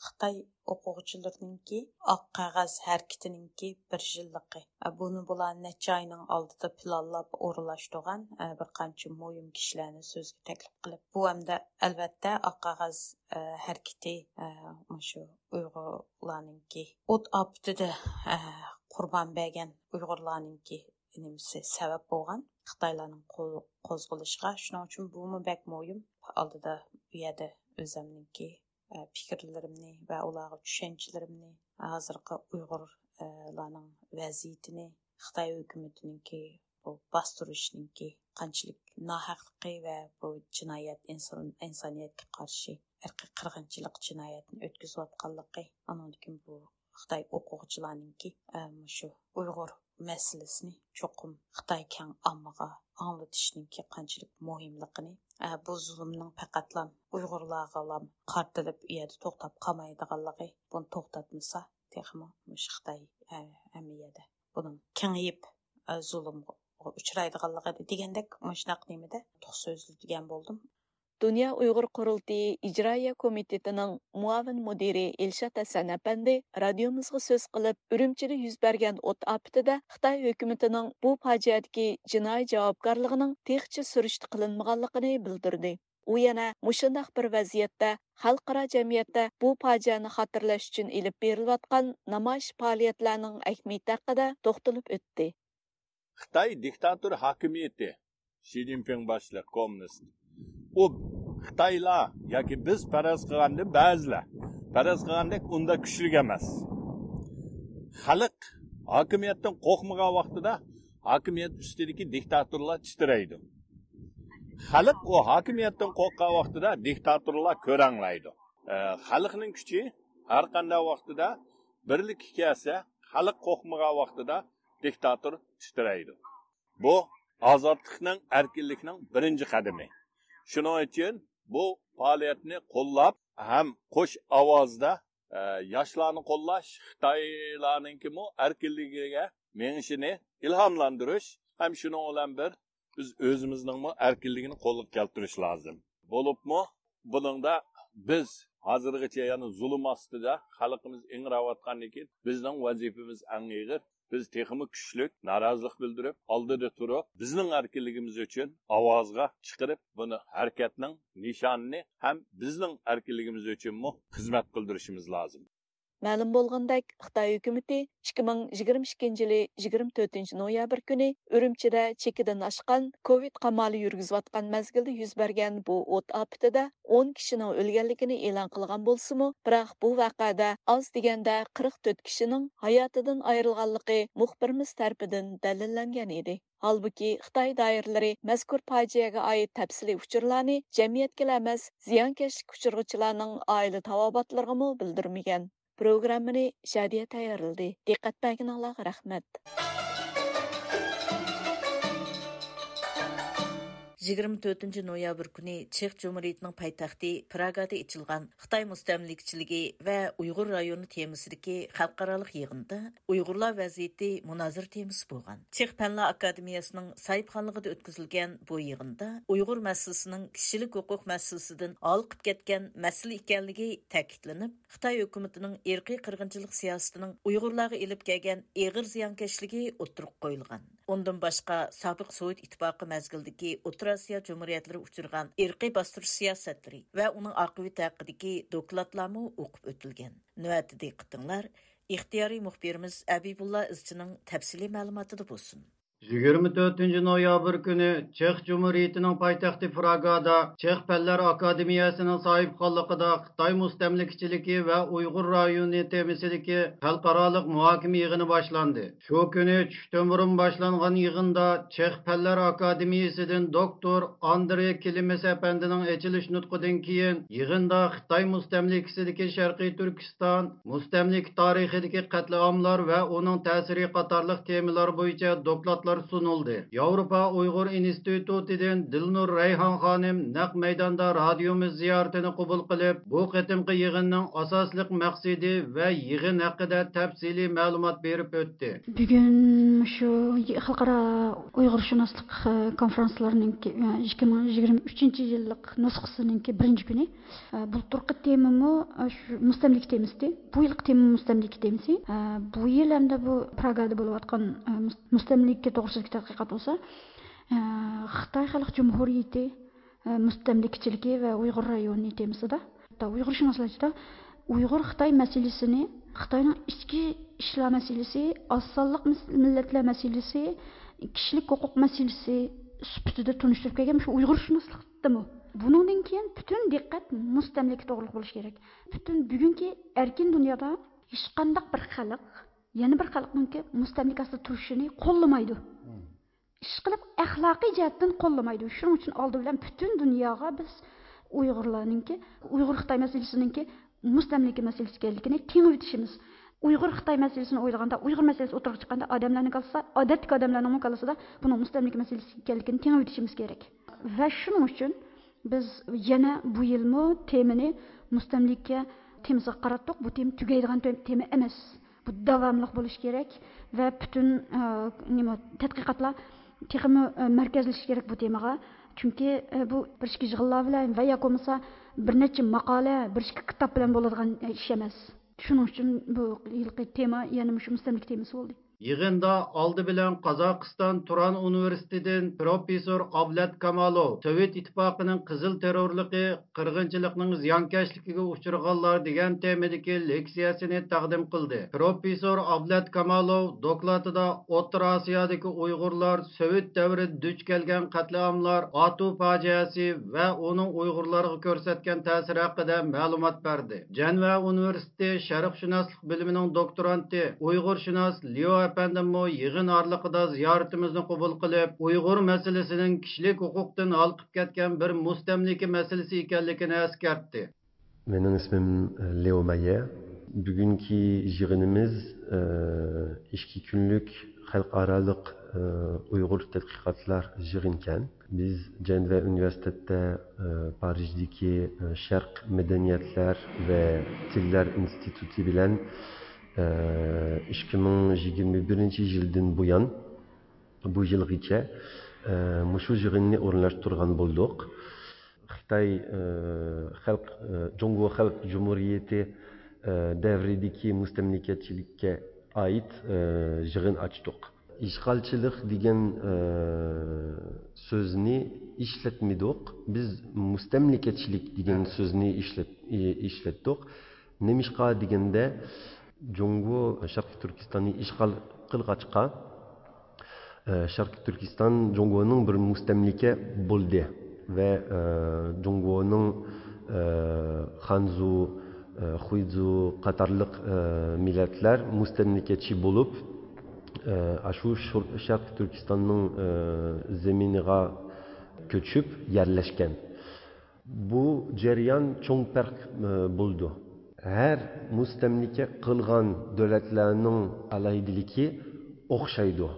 خىتاي ئوقۇغۇچىلىرىنىڭكى ئاق قەغەز ھەرىكىتىنىڭكى بىر يىللىقى. بۇنى بۇلار نەچچە ئاينىڭ ئالدىدا پىلانلاپ ئورۇنلاشتۇرغان، بىر قانچە مۇھىم كىشىلەرنى سۆزگە تەكلىپ قىلىپ. بۇ ھەمدە ئەلۋەتتە ئاق قەغەز ھەرىكىتى مۇشۇ ئۇيغۇرلارنىڭكى ئوت ئاپىتىدە قۇربان بەرگەن ئۇيغۇرلارنىڭكى نېمىسى سەۋەب بولغان خىتايلارنىڭ قول-، قوزغىلىشىغا. شۇنىڭ ئۈچۈن بۇمۇ بەك مۇھىم. ئالدىدا بۇ يەردە ئۆزۈمنىڭكى ئە، پىكىرلىرىمنى ۋە ئۇلارغا چۈشەنچىلىرىمنى، ھازىرقى ئۇيغۇرلارنىڭ ۋەزىيىتىنى، خىتاي ھۆكۈمىتىنىڭكى بۇ باستۇرۇشنىڭكى قانچىلىك ناھەقلىقى ۋە بۇ جىنايەت، ئىنسان، ئىنسانىيەتكە قارشى ئىرقىي قىرغىنچىلىق جىنايەتنى ئۆتكۈزۈۋاتقانلىقى، ئانىڭدىن كېيىن بۇ خىتاي ئوقۇغۇچىلارنىڭكى، ئە، مۇشۇ ئۇيغۇر مەسىلىسىنى چوقۇم خىتاي كەڭ ئاممىغا ئاڭلىتىشنىڭكى قانچىلىك مۇھىملىقىنى، ئە، بۇ زۇلۇمنىڭ پەقەتلا ئۇيغۇرلارغىلا قارىتىلىپ ئۇ يەردە توختاپ قالمايدىغانلىقى، بۇنى توختاتمىسا، تېخىمۇ مۇشۇ خىتاي، ئە، ھەممە يەردە بۇنىڭ كېڭىيىپ، ئە، زۇلۇمغا ئۇچرايدىغانلىقى دېگەندەك مۇشۇنداق نېمىدە توق سۆزلىدىگەن بولدۇم. دۇنيا ئۇيغۇر قۇرۇلتىيى ئىجرائىيە كومىتېتىنىڭ مۇئاۋىن مۇدىرى ئىلشات ھەسەن ئەپەندى رادىيومىزغا سۆز قىلىپ، ئۈرۈمچىدە يۈز بەرگەن ئوت ئاپىتىدە خىتاي ھۆكۈمىتىنىڭ بۇ پاجىئەدىكى جىنايى جاۋابكارلىقىنىڭ تېخىچە سۈرۈشتە قىلىنمىغانلىقىنى بىلدۈردى. ئۇ يەنە مۇشۇنداق بىر ۋەزىيەتتە خەلقئارا جەمئىيەتتە بۇ پاجىئەنى خاتىرىلەش ئۈچۈن ئېلىپ بېرىلىۋاتقان نامايىش پائالىيەتلەرنىڭ ئەھمىيىتى ھەققىدە توختىلىپ ئۆتتى. خىتاي دىكتاتور ھاكىمىيىتى، شى جىنپىڭ باشلىق كوممۇنىست. ئۇ خىتايلار ياكى بىز پەرەز قىلغاندىن بەزىلەر پەرەز قىلغاندەك ئۇنداق كۈچلۈك ئەمەس. خەلق ھاكىمىيەتتىن قورقمىغان ۋاقتىدا ھاكىمىيەت ئۈستىدىكى دىكتاتورلار تىترەيدۇ. خەلق ئۇ ھاكىمىيەتتىن قورققان ۋاقتىدا دىكتاتورلار كۆرەڭلەيدۇ. ئە، خەلقنىڭ كۈچى ھەر قانداق ۋاقتىدا بىرلىككە كەلسە، خەلق قورقمىغان ۋاقتىدا دىكتاتور تىترەيدۇ. بۇ ئازادلىقنىڭ، ئەركىنلىكنىڭ بىرىنچى قەدىمى. شۇنىڭ ئۈچۈن بۇ پائالىيەتنى قوللاپ ھەم قوش ئاۋازدا، ئە، ياشلارنى قوللاش، خىتايلارنىڭكىمۇ ئەركىنلىكىگە مېڭىشىنى ئىلھاملاندۇرۇش ھەم شۇنىڭ بىلەن بىر بىز ئۆزىمىزنىڭمۇ ئەركىنلىكىنى قولغا كەلتۈرۈش لازىم. بولۇپمۇ بۇنىڭدا بىز ھازىرغىچە يەنە زۇلۇم ئاستىدا خەلقىمىز ئىڭراۋاتقاندىن كېيىن بىزنىڭ ۋەزىپىمىز ئەڭ ئېغىر. بىز تېخىمۇ كۈچلۈك، نارازىلىق بىلدۈرۈپ، ئالدىدا تۇرۇپ، بىزنىڭ ئەركىنلىكىمىز ئۈچۈن ئاۋازغا چىقىرىپ، بۇنى ھەرىكەتنىڭ نىشانىنى ھەم بىزنىڭ ئەركىنلىكىمىز ئۈچۈنمۇ خىزمەت قىلدۇرۇشىمىز لازىم. مەلۇم بولغىنىدەك، خىتاي ھۆكۈمىتى ئىككى مىڭ يىگىرمە ئىككىنچى يىلى يىگىرمە تۆتىنچى نويابىر كۈنى ئۈرۈمچىدە چېكىدىن ئاشقان كوۋىد قامالى يۈرگۈزۈۋاتقان مەزگىلدە يۈز بەرگەن بۇ ئوت ئاپىتىدە ئون كىشىنىڭ ئۆلگەنلىكىنى ئېلان قىلغان بولسىمۇ، بىراق بۇ ۋەقەدە ئاز دېگەندە قىرىق تۆت كىشىنىڭ ھاياتىدىن ئايرىلغانلىقى مۇخبىرىمىز تەرىپىدىن دەلىللەنگەن ئىدى. ھالبۇكى، خىتاي دائىرىلىرى مەزكۇر پاجىئەگە ئائىت تەپسىلىي ئۇچۇرلارنى جەمئىيەتكىلا ئەمەس، زىيانكەشلىككە ئۇچرىغۇچىلارنىڭ ئائىلە تاۋابىئاتلىرىغىمۇ بىلدۈرمىگەن. پروگراممىنى شادىيە تەييارلىدى. دىققەت بەرگىنىڭلارغا رەھمەت. يىگىرمە تۆتىنچى نويابىر كۈنى چېخ جۇمھۇرىيىتىنىڭ پايتەختى پراگادا ئېچىلغان خىتاي مۇستەملىكىچىلىكى ۋە ئۇيغۇر رايونى تېمىسىدىكى خەلقئارالىق يىغىندا ئۇيغۇرلار ۋەزىيىتى مۇنازىرە تېمىسى بولغان. چېخ پەنلەر ئاكادېمىيەسىنىڭ ساھىبخانلىقىدا ئۆتكۈزۈلگەن بۇ يىغىندا ئۇيغۇر مەسىلىسىنىڭ كىشىلىك ھوقۇق مەسىلىسىدىن ھالقىپ كەتكەن مەسىلە ئىكەنلىكى تەكىتلىنىپ، خىتاي ھۆكۈمىتىنىڭ ئىرقىي قىرغىنچىلىق سىياسىتىنىڭ ئۇيغۇرلارغا ئېلىپ كەلگەن ئېغىر زىيانكەشلىكى ئوتتۇرىغا قويۇلغان. ئۇندىن باشقا، سابىق سوۋېت ئىتتىپاقى مەزگىلىدىكى ئوتتۇرا ئاسىيا جۇمھۇرىيەتلىرى ئۇچرىغان ئىرقىي باستۇرۇش سىياسەتلىرى ۋە ئۇنىڭ ئاقىۋىتى ھەققىدىكى دوكلاتلارمۇ ئوقۇپ ئۆتۈلگەن. نۆۋەتتە دىققىتىڭلار ئىختىيارىي مۇخبىرىمىز ئەبىبۇللا ئىزچىنىڭ تەپسىلىي مەلۇماتىدا بولسۇن. يىگىرمە تۆتىنچى نويابىر كۈنى چېخ جۇمھۇرىيىتىنىڭ پايتەختى پراگادا چېخ پەنلەر ئاكادېمىيەسىنىڭ ساھىبخانلىقىدا خىتاي مۇستەملىكىچىلىكى ۋە ئۇيغۇر رايونى تېمىسىدىكى خەلقئارالىق مۇھاكىمە يىغىنى باشلاندى. شۇ كۈنى چۈشتىن بۇرۇن باشلانغان يىغىندا چېخ پەنلەر ئاكادېمىيىسىدىن دوكتور ئاندرې كلېمېس ئەپەندىنىڭ ئېچىلىش نۇتقىدىن كېيىن، يىغىندا خىتاي مۇستەملىكىسىدىكى شەرقىي تۈركىستان مۇستەملىكە تارىخىدىكى قەتلىئاملار ۋە ئۇنىڭ تەسىرى قاتارلىق تېمىلار بويىچە دوكلاتلار سۇنۇلدى. ياۋروپا ئۇيغۇر ئىنستىتۇتىدىن دىلنۇر رەيھان خانىم نەق مەيداندا رادىيومىز زىيارىتىنى قوبۇل قىلىپ، بۇ قېتىمقى يىغىننىڭ ئاساسلىق مەقسىتى ۋە يىغىن ھەققىدە تەپسىلىي مەلۇمات بېرىپ ئۆتتى. بۈگۈن شۇ خەلقئارا ئۇيغۇرشۇناسلىق، ئە، كونفرانسلىرىنىڭكى، ئە، ئىككى مىڭ يىگىرمە ئۈچىنچى يىللىق نۇسخىسىنىڭكى بىرىنچى كۈنى. ئە، بۇلتۇرقى تېمىمۇ، ئە، شۇ مۇستەملىكە تېمىسى. بۇ يىلقى تېمىمۇ مۇستەملىكە تېمىسى. ئە، بۇ يىل ھەمدە بۇ پراگادا بولۇۋاتقان، ئە، مۇس-، مۇستەملىكە توغرىسىدىكى تەتقىقات بولسا، ئە، خىتاي خەلق جۇمھۇرىيىتى، ئە، مۇستەملىكىچىلىكى ۋە ئۇيغۇر رايونى تېمىسىدا. ھەتتا ئۇيغۇرشۇناسلار ئىچىدە ئۇيغۇر خىتاي مەسىلىسىنى، خىتاينىڭ ئىچكى ئىشلار مەسىلىسى، ئاز سانلىق مىس-، مىللەتلەر مەسىلىسى، كىشىلىك ھوقۇق مەسىلىسى سۈپىتىدە تونۇشتۇرۇپ كەلگەن مۇشۇ ئۇيغۇرشۇناسلىقتىمۇ. بۇنىڭدىن كېيىن پۈتۈن دىققەت مۇستەملىكە توغرىلىق بولۇشى كېرەك. پۈتۈن بۈگۈنكى ئەركىن دۇنيادا ھېچقانداق بىر خەلق يەنە بىر خەلقنىڭكى مۇستەملىكە ئاستىدا تۇرۇشىنى قوللىمايدۇ. ئىشقىلىپ، ئەخلاقىي جەھەتتىن قوللىمايدۇ. شۇنىڭ ئۈچۈن ئالدى بىلەن پۈتۈن دۇنياغا بىز ئۇيغۇرلارنىڭكى، ئۇيغۇر خىتاي مەسىلىسىنىڭكى مۇستەملىكە مەسىلىسى ئىكەنلىكىنى تېڭىۋېتىشىمىز. ئۇيغۇر خىتاي مەسىلىسىنى ئويلىغاندا، ئۇيغۇر مەسىلىسى ئوتتۇرىغا چىققاندا، ئادەملەرنىڭ كاللىسىدا، ئادەتتىكى ئادەملەرنىڭمۇ كاللىسىدا بۇنىڭ مۇستەملىكە مەسىلىسى ئىكەنلىكىنى تېڭىۋېتىشىمىز كېرەك. ۋە شۇنىڭ ئۈچۈن بىز يەنە بۇ يىلمۇ تېمىنى مۇستەملىكە تېمىسىغا قاراتتۇق. بۇ تېما تۈگەيدىغان تېما ئەمەس. بۇ داۋاملىق بولۇشى كېرەك ۋە پۈتۈن، ئە، نېمە، تەتقىقاتلار تېخىمۇ، ئە، مەركەزلىشىشى كېرەك بۇ تېمىغا. چۈنكى، ئە، بۇ بىر ئىككى يىغىنلار بىلەن ۋە ياكى بولمىسا بىر نەچچە ماقالە، بىر ئىككى كىتاب بىلەن بولىدىغان، ئە، ئىش ئەمەس. شۇنىڭ ئۈچۈن بۇ يىلقى تېما يەنە مۇشۇ مۇستەملىكە تېمىسى بولدى. يىغىندا ئالدى بىلەن قازاقىستان تۇران ئۇنىۋېرسىتېتىدىن پروفېسسور ئابلەت كامالوۋ سوۋېت ئىتتىپاقىنىڭ قىزىل تېررورلۇقى، قىرغىنچىلىقنىڭ زىيانكەشلىكىگە ئۇچرىغانلار دېگەن تېمىدىكى لېكسىيەسىنى تەقدىم قىلدى. پروفېسسور ئابلەت كامالوۋ دوكلاتىدا ئوتتۇرا ئاسىيادىكى ئۇيغۇرلار سوۋېت دەۋرىدە دۇچ كەلگەن قەتلىئاملار، ئاتۇ پاجىئەسى ۋە ئۇنىڭ ئۇيغۇرلارغا كۆرسەتكەن تەسىرى ھەققىدە مەلۇمات بەردى. جەنۋە ئۇنىۋېرسىتېتى شەرقشۇناسلىق بۆلۈمىنىڭ دوكتورانتى، ئۇيغۇرشۇناس ليۇ ئەپەندىممۇ يىغىن ئارىلىقىدا زىيارىتىمىزنى قوبۇل قىلىپ، ئۇيغۇر مەسىلىسىنىڭ كىشىلىك ھوقۇقتىن ھالقىپ كەتكەن بىر مۇستەملىكە مەسىلىسى ئىكەنلىكىنى ئەسكەرتتى. Benim ismim, e, Leo Mayer. Bugünkü yığınımız, e, iki günlük halkaralık, e, Uygur Tedqiqatlar yığınken, biz Cenve Üniversitette, e, Parijdeki, e, Şarq Medeniyetler ve Tiller İnstitutü bilen, e, iki bin yirmi birinci yıldan bu yan, bu yılgıça, e, muşu yığınını orunlaştırgan bulduk. Xitay, e, xalq, e, Cungo Xalq Cumhuriyeti, e, devrideki müstemlekecilikge ait, e, yığın açtık. İşğalçılık degen, e, sözni işletmedik. Biz müstemlekeçilik degen sözni işlet-, e, işlettik. Nemişqa degende, جۇڭگو شەرقىي تۈركىستاننى ئىشغال قىلغاچقا، ئە، شەرقىي تۈركىستان جۇڭگونىڭ بىر مۇستەملىكە بولدى ۋە، ئە، جۇڭگونىڭ، ئە، خانزۇ، ئە، خۇيزۇ قاتارلىق، ئە، مىللەتلەر مۇستەملىكىچى بولۇپ، ئە، ئاشۇ شۇر-، شەرقىي تۈركىستاننىڭ، ئە، زېمىنىغا كۆچۈپ يەرلەشكەن. بۇ جەريان چوڭ پەرق، ئە، بولىدۇ. ھەر مۇستەملىكە قىلغان دۆلەتلەرنىڭ ئالاھىدىلىكى ئوخشايدۇ.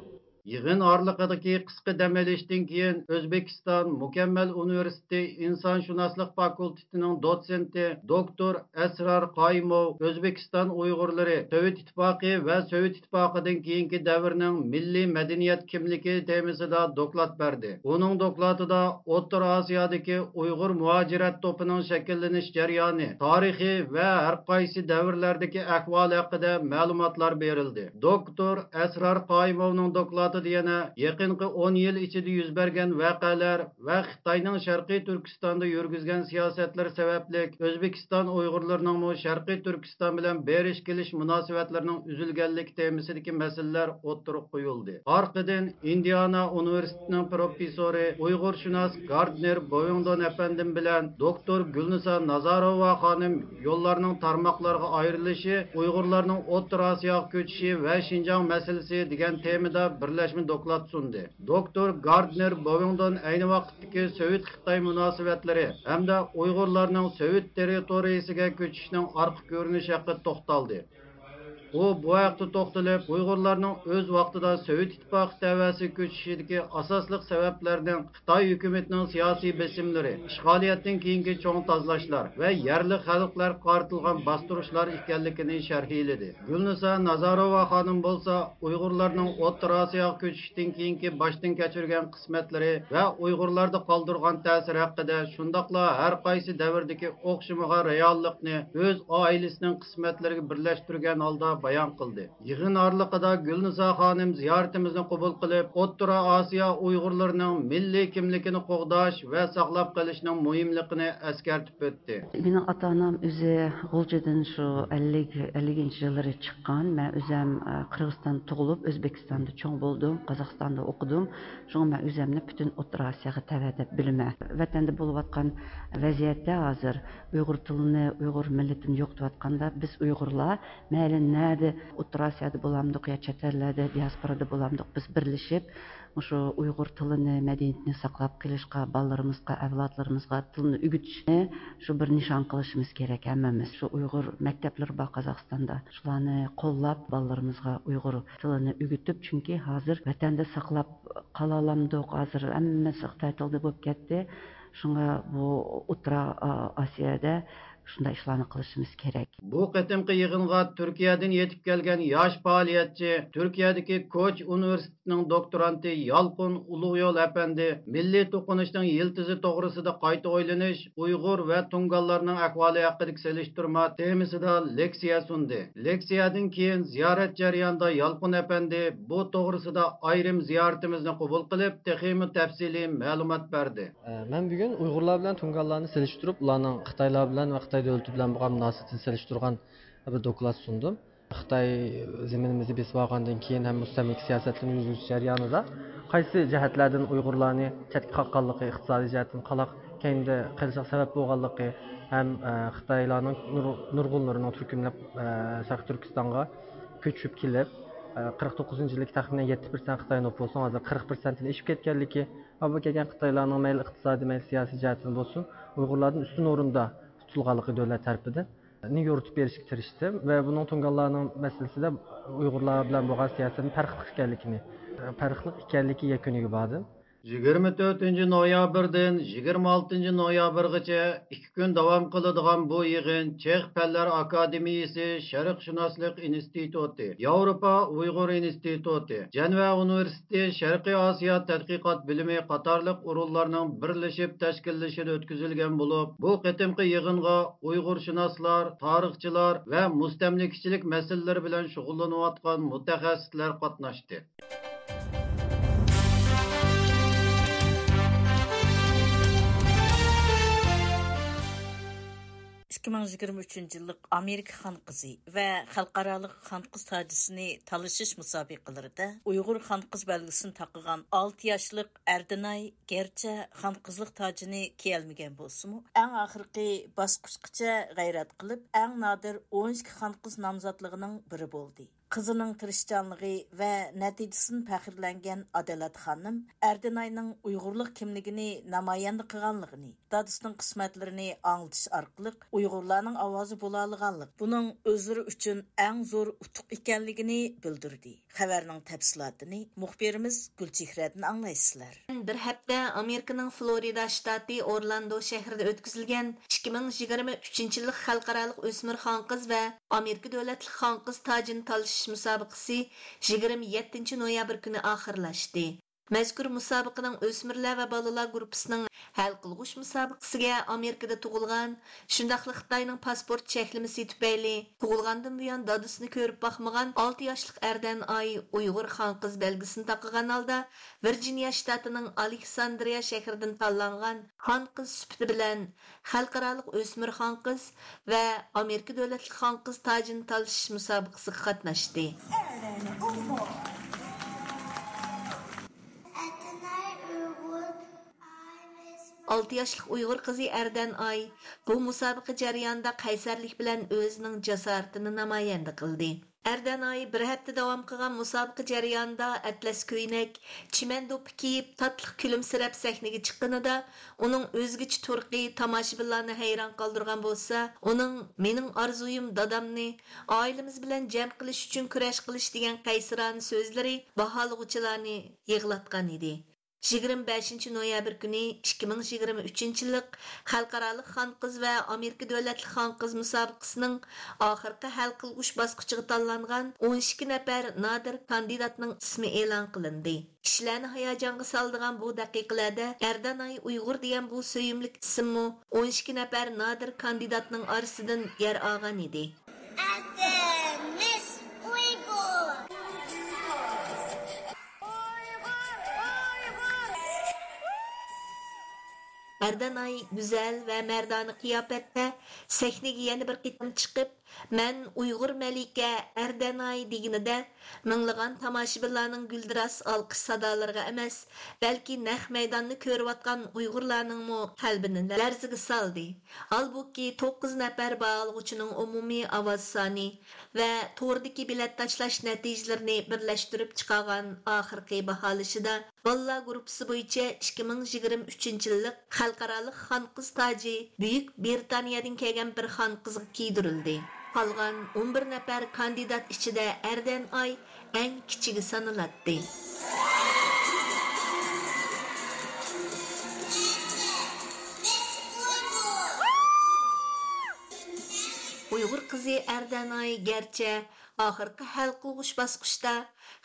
يىغىن ئارىلىقىدىكى قىسقا دەم ئېلىشتىن كېيىن، ئۆزبېكىستان مۇكەممەل ئۇنىۋېرسىتېتى ئىنسانشۇناسلىق فاكۇلتېتىنىڭ دوتسېنتى، دوكتور ئەسرار قايىموۋ ئۆزبېكىستان ئۇيغۇرلىرى سوۋېت ئىتتىپاقى ۋە سوۋېت ئىتتىپاقىدىن كېيىنكى دەۋرنىڭ مىللىي مەدەنىيەت كىملىكى تېمىسىدا دوكلات بەردى. ئۇنىڭ دوكلاتىدا ئوتتۇرا ئاسىيادىكى ئۇيغۇر مۇھاجىرەت توپىنىڭ شەكىللىنىش جەريانى، تارىخى ۋە ھەر قايسى دەۋرلەردىكى ئەھۋالى ھەققىدە مەلۇماتلار بېرىلدى. دوكتور ئەسرار قايىموۋنىڭ دوكلاتى دوكلاتىدا يەنە يېقىنقى ئون يىل ئىچىدە يۈز بەرگەن ۋەقەلەر ۋە خىتاينىڭ شەرقىي تۈركىستاندا يۈرگۈزگەن سىياسەتلىرى سەۋەبلىك ئۆزبېكىستان ئۇيغۇرلىرىنىڭمۇ شەرقىي تۈركىستان بىلەن بېرىش كېلىش مۇناسىۋەتلىرىنىڭ ئۈزۈلگەنلىكى تېمىسىدىكى مەسىلىلەر ئوتتۇرىغا قويۇلدى. ئارقىدىن ئىندىئانا ئۇنىۋېرسىتېتىنىڭ پروفېسسورى، ئۇيغۇرشۇناس گاردنېر بوۋىڭدون ئەپەندىم بىلەن دوكتور گۈلنىسا نازاروۋا خانىم يوللارنىڭ تارماقلارغا ئايرىلىشى، ئۇيغۇرلارنىڭ ئوتتۇرا ئاسىياغا كۆچۈشى ۋە شىنجاڭ مەسىلىسى دېگەن تېمىدا بىرلەشمە دوكلات سۇندى. دوكتور گاردنېر بوۋىڭدون ئەينى ۋاقىتتىكى سوۋېت-خىتاي مۇناسىۋەتلىرى ھەمدە ئۇيغۇرلارنىڭ سوۋېت تېررىتورىيىسىگە كۆچۈشىنىڭ ئارقا كۆرۈنۈشى ھەققىدە توختالدى. ئۇ بۇ ھەقتە توختىلىپ، ئۇيغۇرلارنىڭ ئۆز ۋاقتىدا سوۋېت ئىتتىپاقى تەۋەسىگە كۆچۈشىدىكى ئاساسلىق سەۋەبلەرنىڭ خىتاي ھۆكۈمىتىنىڭ سىياسىي بېسىملىرى، ئىشغالىيەتتىن كېيىنكى چوڭ تازىلاشلار ۋە يەرلىك خەلقلەرگە قارىتىلغان باستۇرۇشلار ئىكەنلىكىنى شەرھلىدى. گۈلنىسا نازاروۋا خانىم بولسا، ئۇيغۇرلارنىڭ ئوتتۇرا ئاسىياغا كۆچۈشتىن كېيىنكى باشتىن كەچۈرگەن قىسمەتلىرى ۋە ئۇيغۇرلاردا قالدۇرغان تەسىرى ھەققىدە، شۇنداقلا ھەر قايسى دەۋردىكى ئوخشىمىغان رېئاللىقنى ئۆز ئائىلىسىنىڭ قىسمەتلىرىگە بىرلەشتۈرگەن ھالدا بايان قىلدى. يىغىن ئارىلىقىدا گۈلنىسا خانىم زىيارىتىمىزنى قوبۇل قىلىپ، ئوتتۇرا ئاسىيا ئۇيغۇرلىرىنىڭ مىللىي كىملىكىنى قوغداش ۋە ساقلاپ قېلىشنىڭ مۇھىملىقىنى ئەسكەرتىپ ئۆتتى. مېنىڭ ئاتا-ئانام ئۆزى غۇلجىدىن شۇ ئەللىك، ئەللىكىنچى يىللىرى چىققان. مەن ئۆزۈم، ئە، قىرغىزىستاندا تۇغۇلۇپ، ئۆزبېكىستاندا چوڭ بولدۇم، قازاقىستاندا ئوقۇدۇم. شۇڭا مەن ئۆزۈمنى پۈتۈن ئوتتۇرا ئاسىياغا تەۋە دەپ بىلىمەن. ۋەتەندە بولۇۋاتقان ۋەزىيەتتە ھازىر ئۇيغۇر تىلىنى، ئۇيغۇر مىللىتىنى يوقىتىۋاتقاندا، بىز ئۇيغۇرلار مەيلى نەدە، ئوتتۇرا ئاسىيادا بولامدۇق يا چەت ئەللەردە، دىياسپورادا بولامدۇق، بىز بىرلىشىپ، مۇشۇ ئۇيغۇر تىلىنى، مەدەنىيىتىنى ساقلاپ قېلىشقا، بالىلىرىمىزغا، ئەۋلادلىرىمىزغا تىلنى ئۆگىتىشنى شۇ بىر نىشان قىلىشىمىز كېرەك ھەممىمىز. شۇ ئۇيغۇر مەكتەپلىرى بار قازاقىستاندا. شۇلارنى قوللاپ، بالىلىرىمىزغا ئۇيغۇر تىلىنى ئۆگىتىپ، چۈنكى ھازىر ۋەتەندە ساقلاپ قالالامدۇق؟ ھازىر ھەممىسى خىتاي تىلىدا بولۇپ كەتتى. شۇڭا بۇ ئوتتۇرا، ئا، ئاسىيادا شۇنداق ئىشلارنى قىلىشىمىز كېرەك. بۇ قېتىمقى يىغىنغا تۈركىيەدىن يېتىپ كەلگەن ياش پائالىيەتچى، تۈركىيەدىكى كوچ ئۇنىۋېرسىتېتىنىڭ دوكتورانتى يالقۇن ئۇلۇغيول ئەپەندى مىللىي توقۇنۇشنىڭ يىلتىزى توغرىسىدا قايتا ئويلىنىش، ئۇيغۇر ۋە تۇڭگانلارنىڭ ئەھۋالى ھەققىدىكى سېلىشتۇرما تېمىسىدا لېكسىيە سۇندى. لېكسىيەدىن كېيىن زىيارەت جەريانىدا يالقۇن ئەپەندى بۇ توغرىسىدا ئايرىم زىيارىتىمىزنى قوبۇل قىلىپ، تېخىمۇ تەپسىلىي مەلۇمات بەردى. ئە، مەن بۈگۈن ئۇيغۇرلار بىلەن تۇڭگانلارنى سېلىشتۇرۇپ، ئۇلارنىڭ خىتايلار بىلەن ۋە خىتاي دۆلىتى بىلەن بولغان مۇناسىۋىتىنى سېلىشتۇرغان بىر دوكلات سۇندۇم. خىتاي زېمىنىمىزنى بېسىپ ئالغاندىن كېيىن ھەم مۇستەملىكە سىياسەتلىرىنى يۈرگۈزۈش جەريانىدا قايسى جەھەتلەردىن ئۇيغۇرلارنى چەتكە قاققانلىقى، ئىقتىسادىي جەھەتتىن قالاق كەينىدە قېلىشىغا سەۋەب بولغانلىقى ھەم، ئە، خىتايلارنىڭ نۇر-، نۇرغۇنلىرىنىڭ تۈركۈملەپ، ئە، شەرقىي تۈركىستانغا كۆچۈپ كېلىپ، ئە، قىرىق توققۇزىنچى يىلدىكى تەخمىنەن يەتتە پىرسەنت خىتاي نوپۇسىنىڭ ھازىر قىرىق پىرسەنتتىن ئېشىپ كەتكەنلىكى، ھالبۇكى كەلگەن خىتايلارنىڭ مەيلى ئىقتىسادىي، مەيلى سىياسىي جەھەتتىن بولسۇن، ئۇيغۇرلاردىن ئۈستۈن ئورۇندا تۇتۇلغانلىقى دۆلەت تەرىپىدىن نى يورۇتۇپ بېرىشكە تىرىشتىم ۋە بۇنىڭ تۇڭگانلارنىڭ مەسىلىسىدە ئۇيغۇرلار بىلەن بولغان سىياسەتنىڭ پەرقلىق ئىكەنلىكىنى، پەرقلىق ئىكەنلىكى يەكۈنىگە باردىم. يىگىرمە تۆتىنچى نويابىردىن يىگىرمە ئالتىنچى نويابىرغىچە ئىككى كۈن داۋام قىلىدىغان بۇ يىغىن چېخ پەنلەر ئاكادېمىيىسى شەرقشۇناسلىق ئىنستىتۇتى، ياۋروپا ئۇيغۇر ئىنستىتۇتى، جەنۋە ئۇنىۋېرسىتېتى شەرقىي ئاسىيا تەتقىقات بۆلۈمى قاتارلىق ئورۇنلارنىڭ بىرلىشىپ تەشكىللىشىدە ئۆتكۈزۈلگەن بولۇپ، بۇ قېتىمقى يىغىنغا ئۇيغۇرشۇناسلار، تارىخچىلار ۋە مۇستەملىكىچىلىك مەسىلىلىرى بىلەن شۇغۇللىنىۋاتقان مۇتەخەسسىسلەر قاتناشتى. ئىككى مىڭ يىگىرمە ئۈچىنچى يىللىق ئامېرىكا خانقىزى ۋە خەلقئارالىق خانقىز تاجىسىنى تالىشىش مۇسابىقىلىرىدە ئۇيغۇر خانقىز بەلگىسىنى تاقىغان ئالتە ياشلىق ئەردىناي گەرچە خانقىزلىق تاجىنى كىيەلمىگەن بولسىمۇ، ئەڭ ئاخىرقى باسقۇچقىچە غەيرەت قىلىپ، ئەڭ نادىر ئون ئىككى خانقىز نامزاتلىقىنىڭ بىرى بولدى. قىزىنىڭ تىرىشچانلىقى ۋە نەتىجىسىدىن پەخىرلەنگەن ئادالەت خانىم ئەردىناينىڭ ئۇيغۇرلۇق كىملىكىنى نامايەندە قىلغانلىقىنى، دادىسىنىڭ قىسمەتلىرىنى ئاڭلىتىش ئارقىلىق ئۇيغۇرلارنىڭ ئاۋازى بولالىغانلىق، بۇنىڭ ئۆزلىرى ئۈچۈن ئەڭ زور ئۇتۇق ئىكەنلىكىنى بىلدۈردى. خەۋەرنىڭ تەپسىلاتىنى مۇخبىرىمىز گۈلچېھرەدىن ئاڭلايسىلەر. بىر ھەپتە ئامېرىكىنىڭ فلورىدا شتاتى ئورلاندو شەھىرىدە ئۆتكۈزۈلگەن ئىككى مىڭ يىگىرمە ئۈچىنچى يىللىق خەلقئارالىق ئۆسمۈر خانقىز ۋە ئامېرىكا دۆلەتلىك خانقىز تاجىنى تالىشىش مۇسابىقىسى يىگىرمە يەتتىنچى نويابىر كۈنى ئاخىرلاشتى. مەزكۇر مۇسابىقىنىڭ ئۆسمۈرلەر ۋە بالىلار گۇرۇپپىسىنىڭ ھەل قىلغۇچ مۇسابىقىسىگە ئامېرىكىدا تۇغۇلغان، شۇنداقلا خىتاينىڭ پاسپورت چەكلىمىسى تۈپەيلى تۇغۇلغاندىن بۇيان دادىسىنى كۆرۈپ باقمىغان ئالتە ياشلىق ئەردەن ئاي ئۇيغۇر خانقىز بەلگىسىنى تاقىغان ھالدا، ۋىرجىنىيە شتاتىنىڭ ئالېكساندرىيە شەھىرىدىن تاللانغان خانقىز سۈپىتى بىلەن خەلقئارالىق ئۆسمۈر خانقىز ۋە ئامېرىكا دۆلەتلىك خانقىز تاجىنى تالىشىش مۇسابىقىسىگە قاتناشتى. ئالتە ياشلىق ئۇيغۇر قىزى ئەردەن ئاي بۇ مۇسابىقە جەريانىدا قەيسەرلىك بىلەن ئۆزىنىڭ جاسارىتىنى نامايەندە قىلدى. ئەردەن ئاي بىر ھەپتە داۋام قىلغان مۇسابىقە جەريانىدا ئەتلەس كۆينەك، چىمەن دوپپا كىيىپ، تاتلىق كۈلۈمسىرەپ سەھنىگە چىققىنىدا، ئۇنىڭ ئۆزگىچە تۇرقى تاماشىبىنلارنى ھەيران قالدۇرغان بولسا، ئۇنىڭ «مېنىڭ ئارزۇيۇم دادامنى ئائىلىمىز بىلەن جەم قىلىش ئۈچۈن كۈرەش قىلىش» دېگەن قەيسىرانە سۆزلىرى باھالىغۇچىلارنى يىغلاتقان ئىدى. يىگىرمە بەشىنچى نويابىر كۈنى ئىككى مىڭ يىگىرمە ئۈچىنچى يىللىق خەلقئارالىق خانقىز ۋە ئامېرىكا دۆلەتلىك خانقىز مۇسابىقىسىنىڭ ئاخىرقى ھەل قىلغۇچ باسقۇچىغا تاللانغان ئون ئىككى نەپەر نادىر كاندىداتنىڭ ئىسمى ئېلان قىلىندى. كىشىلەرنى ھاياجانغا سالىدىغان بۇ دەقىقىلەردە ئەردەنئاي ئۇيغۇر دېگەن بۇ سۆيۈملۈك ئىسىممۇ ئون ئىككى نەپەر نادىر كاندىداتنىڭ ئارىسىدىن يەر ئالغان ئىدى. ئەتىمىز ئۇيغۇر. ئەردەنئاي گۈزەل ۋە مەردانە قىياپەتتە سەھنىگە يەنە بىر قېتىم چىقىپ، «مەن ئۇيغۇر مەلىكە ئەردەنئاي» دېگىنىدە، مىڭلىغان تاماشىبىنلارنىڭ گۈلدۈراس ئالقىش سادالىرىغا ئەمەس، بەلكى نەق مەيداننى كۆرۈۋاتقان ئۇيغۇرلارنىڭمۇ قەلبىنى لەرزىگە سالدى. ھالبۇكى، توققۇز نەپەر باھالىغۇچىنىڭ ئومۇمىي ئاۋاز سانى ۋە توردىكى بېلەت تاشلاش نەتىجىلىرىنى بىرلەشتۈرۈپ چىقارغان ئاخىرقى باھالىشىدا، بالىلار گۇرۇپپىسى بويىچە ئىككى مىڭ يىگىرمە ئۈچىنچى يىللىق خەلقئارالىق خانقىز تاجى بۈيۈك بىرىتانىيەدىن كەلگەن بىر خانقىزغا كىيدۈرۈلدى. قالغان ئون بىر نەپەر كاندىدات ئىچىدە ئەردەن ئاي ئەڭ كىچىكى سانىلاتتى. ئۇيغۇر قىزى ئەردەن ئاي گەرچە ئاخىرقى ھەل قىلغۇچ باسقۇچتا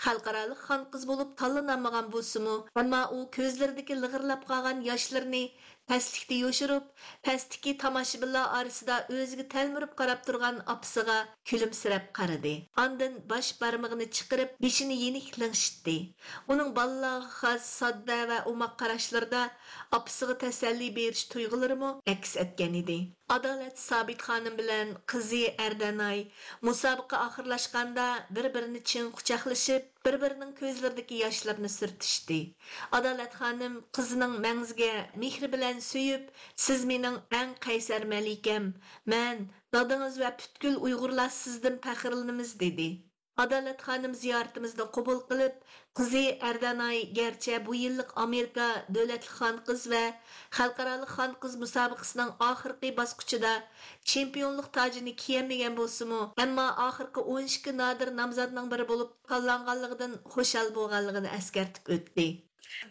خەلقئارالىق خانقىز بولۇپ تاللىنالمىغان بولسىمۇ، ئەمما ئۇ كۆزلىرىدىكى لىغىرلاپ قالغان ياشلىرىنى پەسلىكتە يوشۇرۇپ، پەستىكى تاماشىبىنلار ئارىسىدا ئۆزىگە تەلمۈرۈپ قاراپ تۇرغان ئاپىسىغا كۈلۈمسىرەپ قارىدى. ئاندىن باش بارمىقىنى چىقىرىپ، بېشىنى يېنىك لىڭشىتتى. ئۇنىڭ بالىلارغا خاس ساددا ۋە ئوماق قاراشلىرىدا ئاپىسىغا تەسەللى بېرىش تۇيغۇلىرىمۇ ئەكس ئەتكەن ئىدى. ئادالەت سابىت خانىم بىلەن قىزى ئەردەناي مۇسابىقە ئاخىرلاشقاندا بىر-بىرىنى چىڭ قۇچاقلىشىپ، بىر-بىرىنىڭ كۆزلىرىدىكى ياشلىرىنى سۈرتۈشتى. ئادالەت خانىم قىزىنىڭ مەڭزىگە مېھرى بىلەن سۆيۈپ، «سىز مېنىڭ ئەڭ قەيسەر مەلىكەم، مەن، دادىڭىز ۋە پۈتكۈل ئۇيغۇرلار سىزدىن پەخىرلىنىمىز» دېدى. ئادالەت خانىم زىيارىتىمىزنى قوبۇل قىلىپ، قىزى ئەردەناي گەرچە بۇ يىللىق ئامېرىكا دۆلەتلىك خانقىز ۋە خەلقئارالىق خانقىز مۇسابىقىسىنىڭ ئاخىرقى باسقۇچىدا چېمپىيونلۇق تاجىنى كىيەلمىگەن بولسىمۇ، ئەمما ئاخىرقى ئون ئىككى نادىر نامزاتنىڭ بىرى بولۇپ تاللانغانلىقىدىن خۇشال بولغانلىقىنى ئەسكەرتىپ ئۆتتى.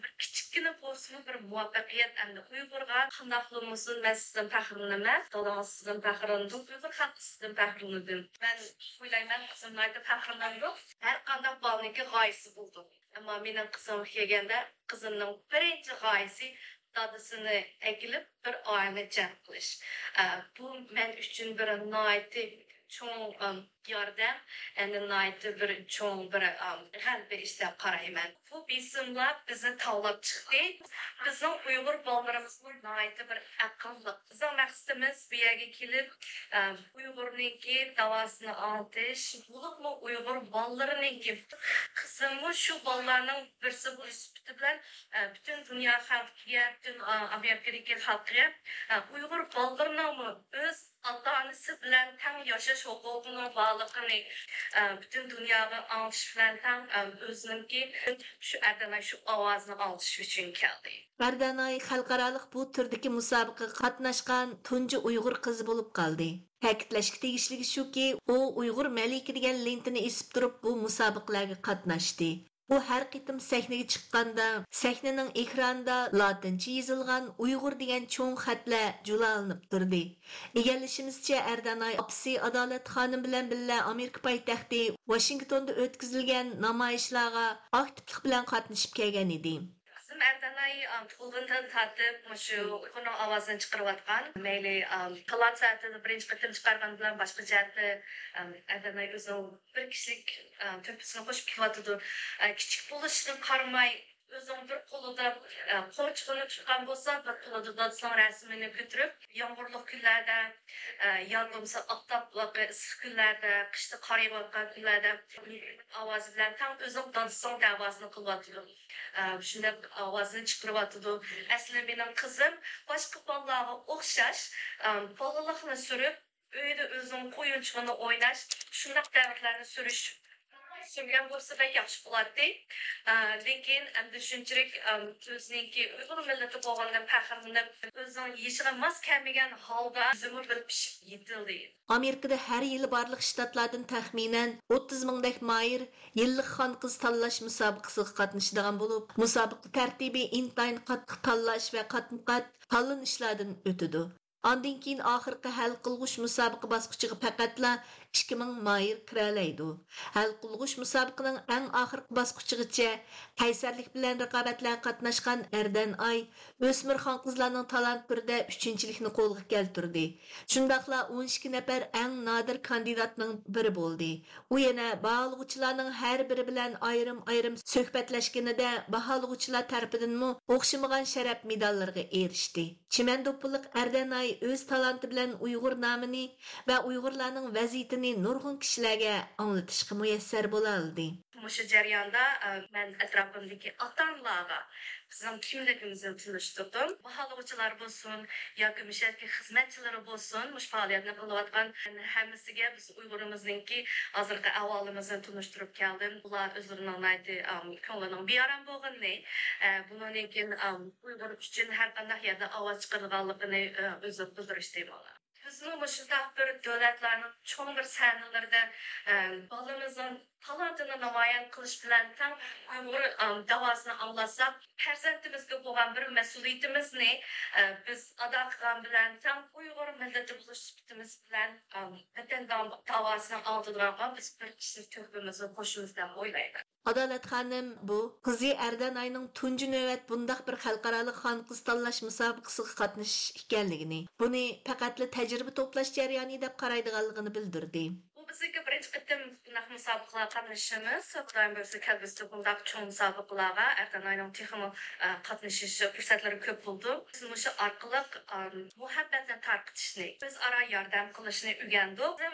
بىر كىچىككىنە بولسىمۇ بىر مۇۋەپپەقىيەت ئەمدى ئۇيغۇرغا. قانداقلا بولمىسۇن، مەن سىزدىن پەخىرلىنىمەن، دادىڭىز سىزدىن پەخىرلىنىدۇ، ئۇيغۇر خەلقى سىزدىن پەخىرلىنىدۇ. مەن ئويلايمەن، قىزىم ناھايىتى پەخىرلىنىدۇ. ھەر قانداق بالىنىڭكى غايىسى بولىدۇ. ئەمما مېنىڭ قىزىمغا كەلگەندە، قىزىمنىڭ بىرىنچى غايىسى دادىسىنى ئەكېلىپ، بىر ئائىلىنى جەم قىلىش. ئە، بۇ مەن ئۈچۈن بىر ناھايىتى چوڭ، ئەم، ياردەم، ئەنە ناھايىتى بىر چوڭ بىر، ئەم، غەلىبە ئىش دەپ قارايمەن. بۇ بېسىملار بىزنى تاۋلاپ چىقتى. بىزنىڭ ئۇيغۇر بالىلىرىمىزمۇ ناھايىتى بىر ئەقىللىق. بىزنىڭ مەقسىتىمىز بۇ يەرگە كېلىپ، ئە، ئۇيغۇرنىڭكى داۋاسىنى ئاڭلىتىش، بولۇپمۇ ئۇيغۇر بالىلىرىنىڭكى، قىزىممۇ شۇ بالىلارنىڭ بىرسى بولۇش سۈپىتى بىلەن، ئە، پۈتۈن دۇنيا خەلقىگە، پۈتۈن، ئا، ئامېرىكىدىكى خەلققە، ئە، ئۇيغۇر بالىلىرىنىڭمۇ ئۆز ئاتا-ئانىسى بىلەن تەڭ ياشاش ھوقۇقىنىڭ بارلىقىنى، ئە، پۈتۈن دۇنياغا ئاڭلىتىش بىلەن تەڭ، ئە، ئۆزىنىڭكى شۇ ئەردەناي شۇ ئاۋازىنى ئاڭلىتىش ئۈچۈن كەلدى. ئەردەناي خەلقئارالىق بۇ تۈردىكى مۇسابىقىگە قاتناشقان تۇنجى ئۇيغۇر قىزى بولۇپ قالدى. تەكىتلەشكە تېگىشلىكى شۇكى، ئۇ ئۇيغۇر مەلىكە دېگەن لېنتىنى ئېسىپ تۇرۇپ، بۇ مۇسابىقىلەرگە قاتناشتى. ئۇ ھەر قېتىم سەھنىگە چىققاندا، سەھنىنىڭ ئېكرانىدا لاتىنچە يېزىلغان ئۇيغۇر دېگەن چوڭ خەتلەر جۇلالىنىپ تۇردى. ئىگىلىشىمىزچە، ئەردەناي ئاپىسى ئادالەت خانىم بىلەن بىللە ئامېرىكا پايتەختى ۋاشىنگتوندا ئۆتكۈزۈلگەن نامايىشلارغا ئاكتىپلىق بىلەن قاتنىشىپ كەلگەن ئىدى. قىزىم ئەردەناي، ئا، تۇغۇلغىنىدىن تارتىپ مۇشۇ ئۇيغۇرنىڭ ئاۋازىنى چىقىرىۋاتقان. مەيلى، ئا، تالانت سەنئىتىنى بىرىنچى قېتىم چىقارغان بىلەن باشقا جەھەتتە، ئا، ئەردەناي ئۆزىنىڭ بىر كىشىلىك، ئا، تۆھپىسىنى قوشۇپ كېلىۋاتىدۇ. ئا، كىچىك بولۇشىغا قارىماي، ئۆزىنىڭ بىر قولىدا، ئا، قومۇچىقىنى تۇتقان بولسا، بىر قولىدا دادىسىنىڭ رەسىمىنى كۆتۈرۈپ، يامغۇرلۇق كۈنلەردە، ئا، يا بولمىسا ئاپتاپلىق ئىسسىق كۈنلەردە، قىشتا قار يېغىۋاتقان كۈنلەردە ئاۋازى بىلەن تەڭ ئۆزىنىڭ دادىسىنىڭ دەۋاسىنى قىلىۋاتىدۇ. ئا، شۇنداق ئاۋازىنى چىقىرىۋاتىدۇ. ئەسلى مېنىڭ قىزىم باشقا بالىلارغا ئوخشاش، ئا، بالىلىقنى سۈرۈپ، ئۆيدە ئۆزىنىڭ ئويۇنچۇقىنى ئويناش، شۇنداق دەۋرلەرنى سۈرۈش، سۈرگەن بولسا بەك ياخشى بولاتتى. ئا، لېكىن ئەمدى شۇنچىلىك، ئا، ئۆزىنىڭكى ئۇيغۇر مىللىتى بولغانلىقىدىن پەخىرلىنىپ، ئۆزىنىڭ يېشىغا ماس كەلمىگەن ھالدا ئۆزىمۇ بىر پىشىپ يېتىلدى. ئامېرىكىدا ھەر يىلى بارلىق شتاتلاردىن تەخمىنەن ئوتتۇز مىڭدەك ماھىر يىللىق خانقىز تاللاش مۇسابىقىسىغا قاتنىشىدىغان بولۇپ، مۇسابىقە تەرتىپى ئىنتايىن قاتتىق تاللاش ۋە قاتمۇقات تاللىنىشلاردىن ئۆتىدۇ. ئاندىن كېيىن ئاخىرقى ھەل قىلغۇچ مۇسابىقە باسقۇچىغا پەقەتلا ئىككى مىڭ ماھىر كىرەلەيدۇ. ھەل قىلغۇچ مۇسابىقىنىڭ ئەڭ ئاخىرقى باسقۇچىغىچە قەيسەرلىك بىلەن رىقابەتلەرگە قاتناشقان ئەردەنئاي ئۆسمۈر خانقىزلارنىڭ تالانتلىرىدا ئۈچىنچىلىكنى قولغا كەلتۈردى. شۇنداقلا ئون ئىككى نەپەر ئەڭ نادىر كاندىداتنىڭ بىرى بولدى. ئۇ يەنە باھالىغۇچىلارنىڭ ھەر بىرى بىلەن ئايرىم-ئايرىم سۆھبەتلەشكىنىدە، باھالىغۇچىلار تەرىپىدىنمۇ ئوخشىمىغان شەرەپ مېداللىرىغا ئېرىشتى. چىمەن دوپپىلىق ئەردەنئاي ئۆز تالانتى بىلەن ئۇيغۇر نامىنى ۋە ئۇيغۇرلارنىڭ ۋەزىيىتىنى نۇرغۇن كىشىلەرگە ئاڭلىتىشقا مۇيەسسەر بولالىدى. مۇشۇ جەرياندا، ئە، مەن ئەتراپىمدىكى ئاتا-ئانىلارغا بىزنىڭ كىملىكىمىزنى تونۇشتۇردۇم. باھالىغۇچىلار بولسۇن ياكى مۇشۇ يەردىكى خىزمەتچىلىرى بولسۇن، مۇشۇ پائالىيەتنى قىلىۋاتقان ھەممىسىگە بىز ئۇيغۇرىمىزنىڭكى ھازىرقى ئەھۋالىمىزنى تونۇشتۇرۇپ كەلدىم. ئۇلار ئۆزلىرىنىڭ ناھايىتى، ئام، كۆڭلىنىڭ بىئارام بولغىنىنى، ئە، بۇنىڭدىن كېيىن، ئام، ئۇيغۇر ئۈچۈن ھەر قانداق يەردە ئاۋاز چىقىرىدىغانلىقىنى، ئە، ئۆزى بىلدۈرۈشتى مانا. بىزمۇ مۇشۇنداق بىر دۆلەتلەرنىڭ چوڭ بىر سەھنىلىرىدە، ئە، بالىمىزنىڭ تالانتىنى نامايان قىلىش بىلەن تەڭ ئۇيغۇر، ئام، داۋاسىنى ئاڭلاتساق، پەرزەنتىمىزگە بولغان بىر مەسئۇلىيىتىمىزنى، ئە، بىز ئادا قىلغان بىلەن تەڭ ئۇيغۇر مىللىتى بولۇش سۈپىتىمىز بىلەن، ئام، ۋەتەن داۋ-، داۋاسىنى ئاڭلىتىدىغانغا بىز بىر كىشىلىك تۆھپىمىزنى قوشىمىز دەپ ئويلايمەن. ئادالەت خانىم بۇ قىزى ئەردەنئاينىڭ تۇنجى نۆۋەت بۇنداق بىر خەلقئارالىق خانقىز تاللاش مۇسابىقىسىغا قاتنىشىش ئىكەنلىكىنى، بۇنى پەقەتلا تەجرىبە توپلاش جەريانى دەپ قارايدىغانلىقىنى بىلدۈردى. بۇ بىزنىڭكى بىرىنچى قېتىم بۇنداق مۇسابىقىلەرگە قاتنىشىشىمىز. خۇدايىم بۇيرۇسا، كەلگۈسىدە بۇنداق چوڭ مۇسابىقىلەرگە ئەردەنئاينىڭ تېخىمۇ، ئە، قاتنىشىش پۇرسەتلىرى كۆپ بولىدۇ. بىز مۇشۇ ئارقىلىق، ئە، مۇھەببەتنى تارقىتىشنى، ئۆزئارا ياردەم قىلىشنى ئۆگەندۇق.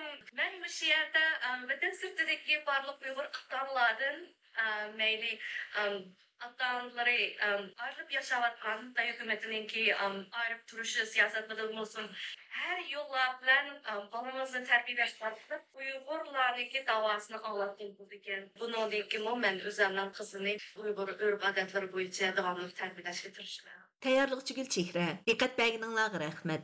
مەن مۇشۇ يەردە، ئە، ۋەتەن سىرتىدىكى بارلىق ئۇيغۇر ئاتا-ئانىلاردىن، ئە، مەيلى، ئە، ئاتا-ئانىلىرى، ئە، ئايرىلىپ ياشاۋاتقان، خىتاي ھۆكۈمىتىنىڭكى، ئە، ئايرىپ تۇرۇش سىياسەتلىرىدىن بولسۇن، ھەر يوللار بىلەن، ئە، بالىڭىزنى تەربىيەلەش ئارقىلىق ئۇيغۇرلارنىڭكى داۋاسىنى ئاڭلاتقىلى بولىدىكەن. بۇنىڭدىن كېيىنمۇ مەن ئۆزۈمنىڭ قىزىنى ئۇيغۇر ئۆرپ-ئادەتلىرى بويىچە داۋاملىق تەربىيەلەشكە تىرىشىمەن. تەييارلىقچى گۈلچېھرە. دىققەت بەرگىنىڭلارغا رەھمەت.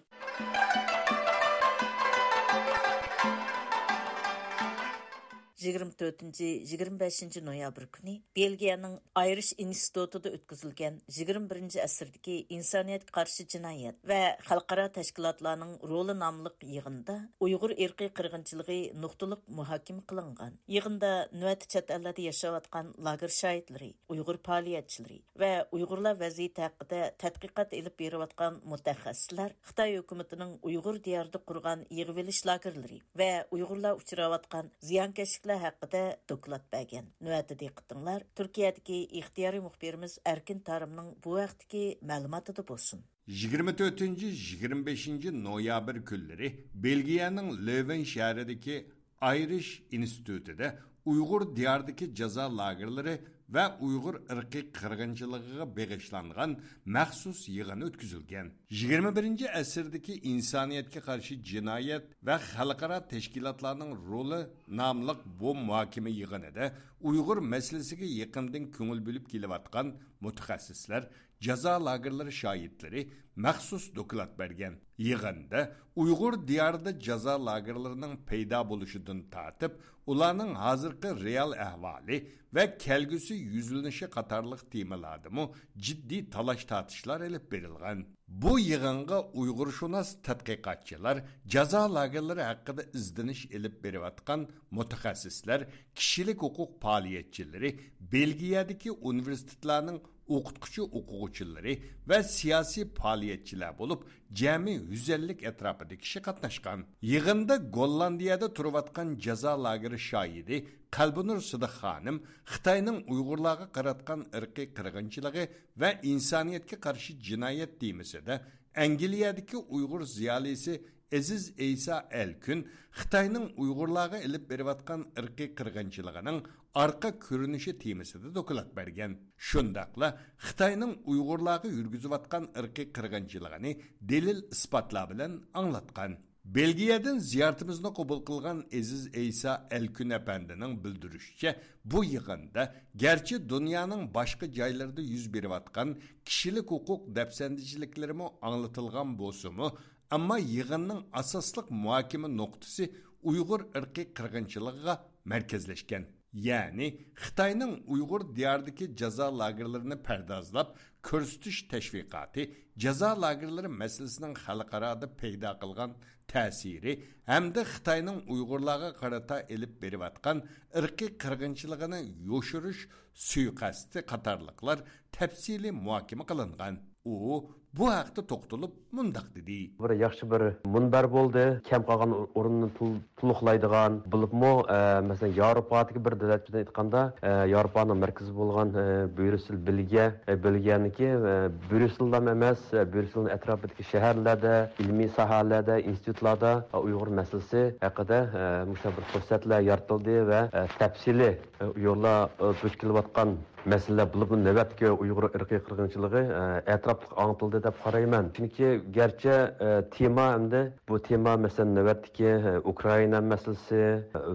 يىگىرمە تۆتىنچى، يىگىرمە بەشىنچى نويابىر كۈنى بېلگىيەنىڭ ئايرىش ئىنستىتۇتىدا ئۆتكۈزۈلگەن يىگىرمە بىرىنچى ئەسىردىكى ئىنسانىيەتكە قارشى جىنايەت ۋە خەلقئارا تەشكىلاتلارنىڭ رولى ناملىق يىغىندا ئۇيغۇر ئىرقىي قىرغىنچىلىقى نۇقتىلىق مۇھاكىمە قىلىنغان. يىغىندا نۆۋەتتە چەت ئەللەردە ياشاۋاتقان لاگېر شاھىتلىرى، ئۇيغۇر پائالىيەتچىلىرى ۋە ئۇيغۇرلار ۋەزىيىتى ھەققىدە تەتقىقات ئېلىپ بېرىۋاتقان مۇتەخەسسىسلەر خىتاي ھۆكۈمىتىنىڭ ئۇيغۇر دىيارىدا قۇرغان يىغىۋېلىش لاگېرلىرى ۋە ئۇيغۇرلار ئۇچراۋاتقان زىيانكەشلىكلەر ھەققىدە دوكلات بەرگەن. نۆۋەتتە دىققىتىڭلار تۈركىيەدىكى ئىختىيارىي مۇخبىرىمىز ئەركىن تارىمنىڭ بۇ ھەقتىكى مەلۇماتىدا بولسۇن. يىگىرمە تۆتىنچى، يىگىرمە بەشىنچى نويابىر كۈنلىرى بېلگىيەنىڭ لۆۋېن شەھىرىدىكى ئايرىش ئىنستىتۇتىدا ئۇيغۇر دىيارىدىكى جازا لاگېرلىرى ۋە ئۇيغۇر ئىرقىي قىرغىنچىلىقىغا بېغىشلانغان مەخسۇس يىغىن ئۆتكۈزۈلگەن. يىگىرمە بىرىنچى ئەسىردىكى ئىنسانىيەتكە قارشى جىنايەت ۋە خەلقئارا تەشكىلاتلارنىڭ رولى ناملىق بۇ مۇھاكىمە يىغىنىدا ئۇيغۇر مەسىلىسىگە يېقىندىن كۆڭۈل بۆلۈپ كېلىۋاتقان مۇتەخەسسىسلەر جازا لاگېرلىرى شاھىتلىرى مەخسۇس دوكلات بەرگەن. يىغىندا ئۇيغۇر دىيارىدا جازا لاگېرلىرىنىڭ پەيدا بولۇشىدىن تارتىپ، ئۇلارنىڭ ھازىرقى رېئال ئەھۋالى ۋە كەلگۈسى يۈزلىنىشى قاتارلىق تېمىلاردىمۇ جىددىي تالاش-تارتىشلار ئېلىپ بېرىلغان. بۇ يىغىنغا ئۇيغۇرشۇناس تەتقىقاتچىلار، جازا لاگېرلىرى ھەققىدە ئىزدىنىش ئېلىپ بېرىۋاتقان مۇتەخەسسىسلەر، كىشىلىك ھوقۇق پائالىيەتچىلىرى، بېلگىيەدىكى ئۇنىۋېرسىتېتلارنىڭ ئوقۇتقۇچى-ئوقۇغۇچىلىرى ۋە سىياسىي پائالىيەتچىلەر بولۇپ، جەمئىي يۈز ئەللىك ئەتراپىدا كىشى قاتناشقان. يىغىندا گوللاندىيەدە تۇرۇۋاتقان جازا لاگېرى شاھىدى، قەلبىنۇر سىدىق خانىم خىتاينىڭ ئۇيغۇرلارغا قاراتقان ئىرقىي قىرغىنچىلىقى ۋە ئىنسانىيەتكە قارشى جىنايەت تېمىسىدا ئەنگلىيەدىكى ئۇيغۇر زىيالىيسى ئەزىز ئەيسا ئەلكۈن خىتاينىڭ ئۇيغۇرلارغا ئېلىپ بېرىۋاتقان ئىرقىي قىرغىنچىلىقىنىڭ ئارقا كۆرۈنۈشى تېمىسىدا دوكلات بەرگەن. شۇنداقلا خىتاينىڭ ئۇيغۇرلارغا يۈرگۈزۈۋاتقان ئىرقىي قىرغىنچىلىقىنى دەلىل-ئىسپاتلار بىلەن ئاڭلاتقان. بېلگىيەدىن زىيارىتىمىزنى قوبۇل قىلغان ئېزىز ئەيسا ئەلكۈن ئەپەندىنىڭ بىلدۈرۈشىچە، بۇ يىغىندا گەرچە دۇنيانىڭ باشقا جايلىرىدا يۈز بېرىۋاتقان كىشىلىك ھوقۇق دەپسەندىچىلىكلىرىمۇ ئاڭلىتىلغان بولسىمۇ، ئەمما يىغىننىڭ ئاساسلىق مۇھاكىمە نۇقتىسى ئۇيغۇر ئىرقىي قىرغىنچىلىقىغا مەركەزلەشكەن. يەنى خىتاينىڭ ئۇيغۇر دىيارىدىكى جازا لاگېرلىرىنى پەردازلاپ كۆرسىتىش تەشۋىقاتى، جازا لاگېرلىرى مەسىلىسىنىڭ خەلقئارادا پەيدا قىلغان تەسىرى ھەمدە خىتاينىڭ ئۇيغۇرلارغا قارىتا ئېلىپ بېرىۋاتقان ئىرقىي قىرغىنچىلىقىنى يوشۇرۇش سۇيىقەستى قاتارلىقلار تەپسىلىي مۇھاكىمە قىلىنغان. ئۇ بۇ ھەقتە توختىلىپ مۇنداق دېدى. بىر ياخشى بىر مۇنبەر بولدى. كەم قالغان ئورۇننى تول-، تولۇقلايدىغان، بولۇپمۇ، ئە، مەسىلەن، ياۋروپادىكى بىر دۆلەت بىلەن ئېيتقاندا، ئە، ياۋروپانىڭ مەركىزى بولغان، ئە، بريۇسسېل، بېلگىيە، ئە، بېلگىيەنىڭكى، ئە، بريۇسسېللا ئەمەس، ئە، بريۇسسېلنىڭ ئەتراپىدىكى شەھەرلەردە، ئىلمىي ساھەلەردە، ئىنستىتۇتلاردا، ئە، ئۇيغۇر مەسىلىسى ھەققىدە، ئە، مۇشۇنداق بىر پۇرسەتلەر يارىتىلدى ۋە، ئە، تەپسىلىي، ئە، ئۇيغۇرلار، ئە، دۇچ كېلىۋاتقان مەسىلىلەر، بولۇپمۇ نۆۋەتتىكى ئۇيغۇر ئىرقىي قىرغىنچىلىقى، ئە، ئەتراپلىق ئاڭلىتىلدى دەپ قارايمەن. چۈنكى گەرچە، ئە، تېما ئەمدى بۇ تېما، مەسىلەن، نۆۋەتتىكى، ئە، ئۇكرائىنا مەسىلىسى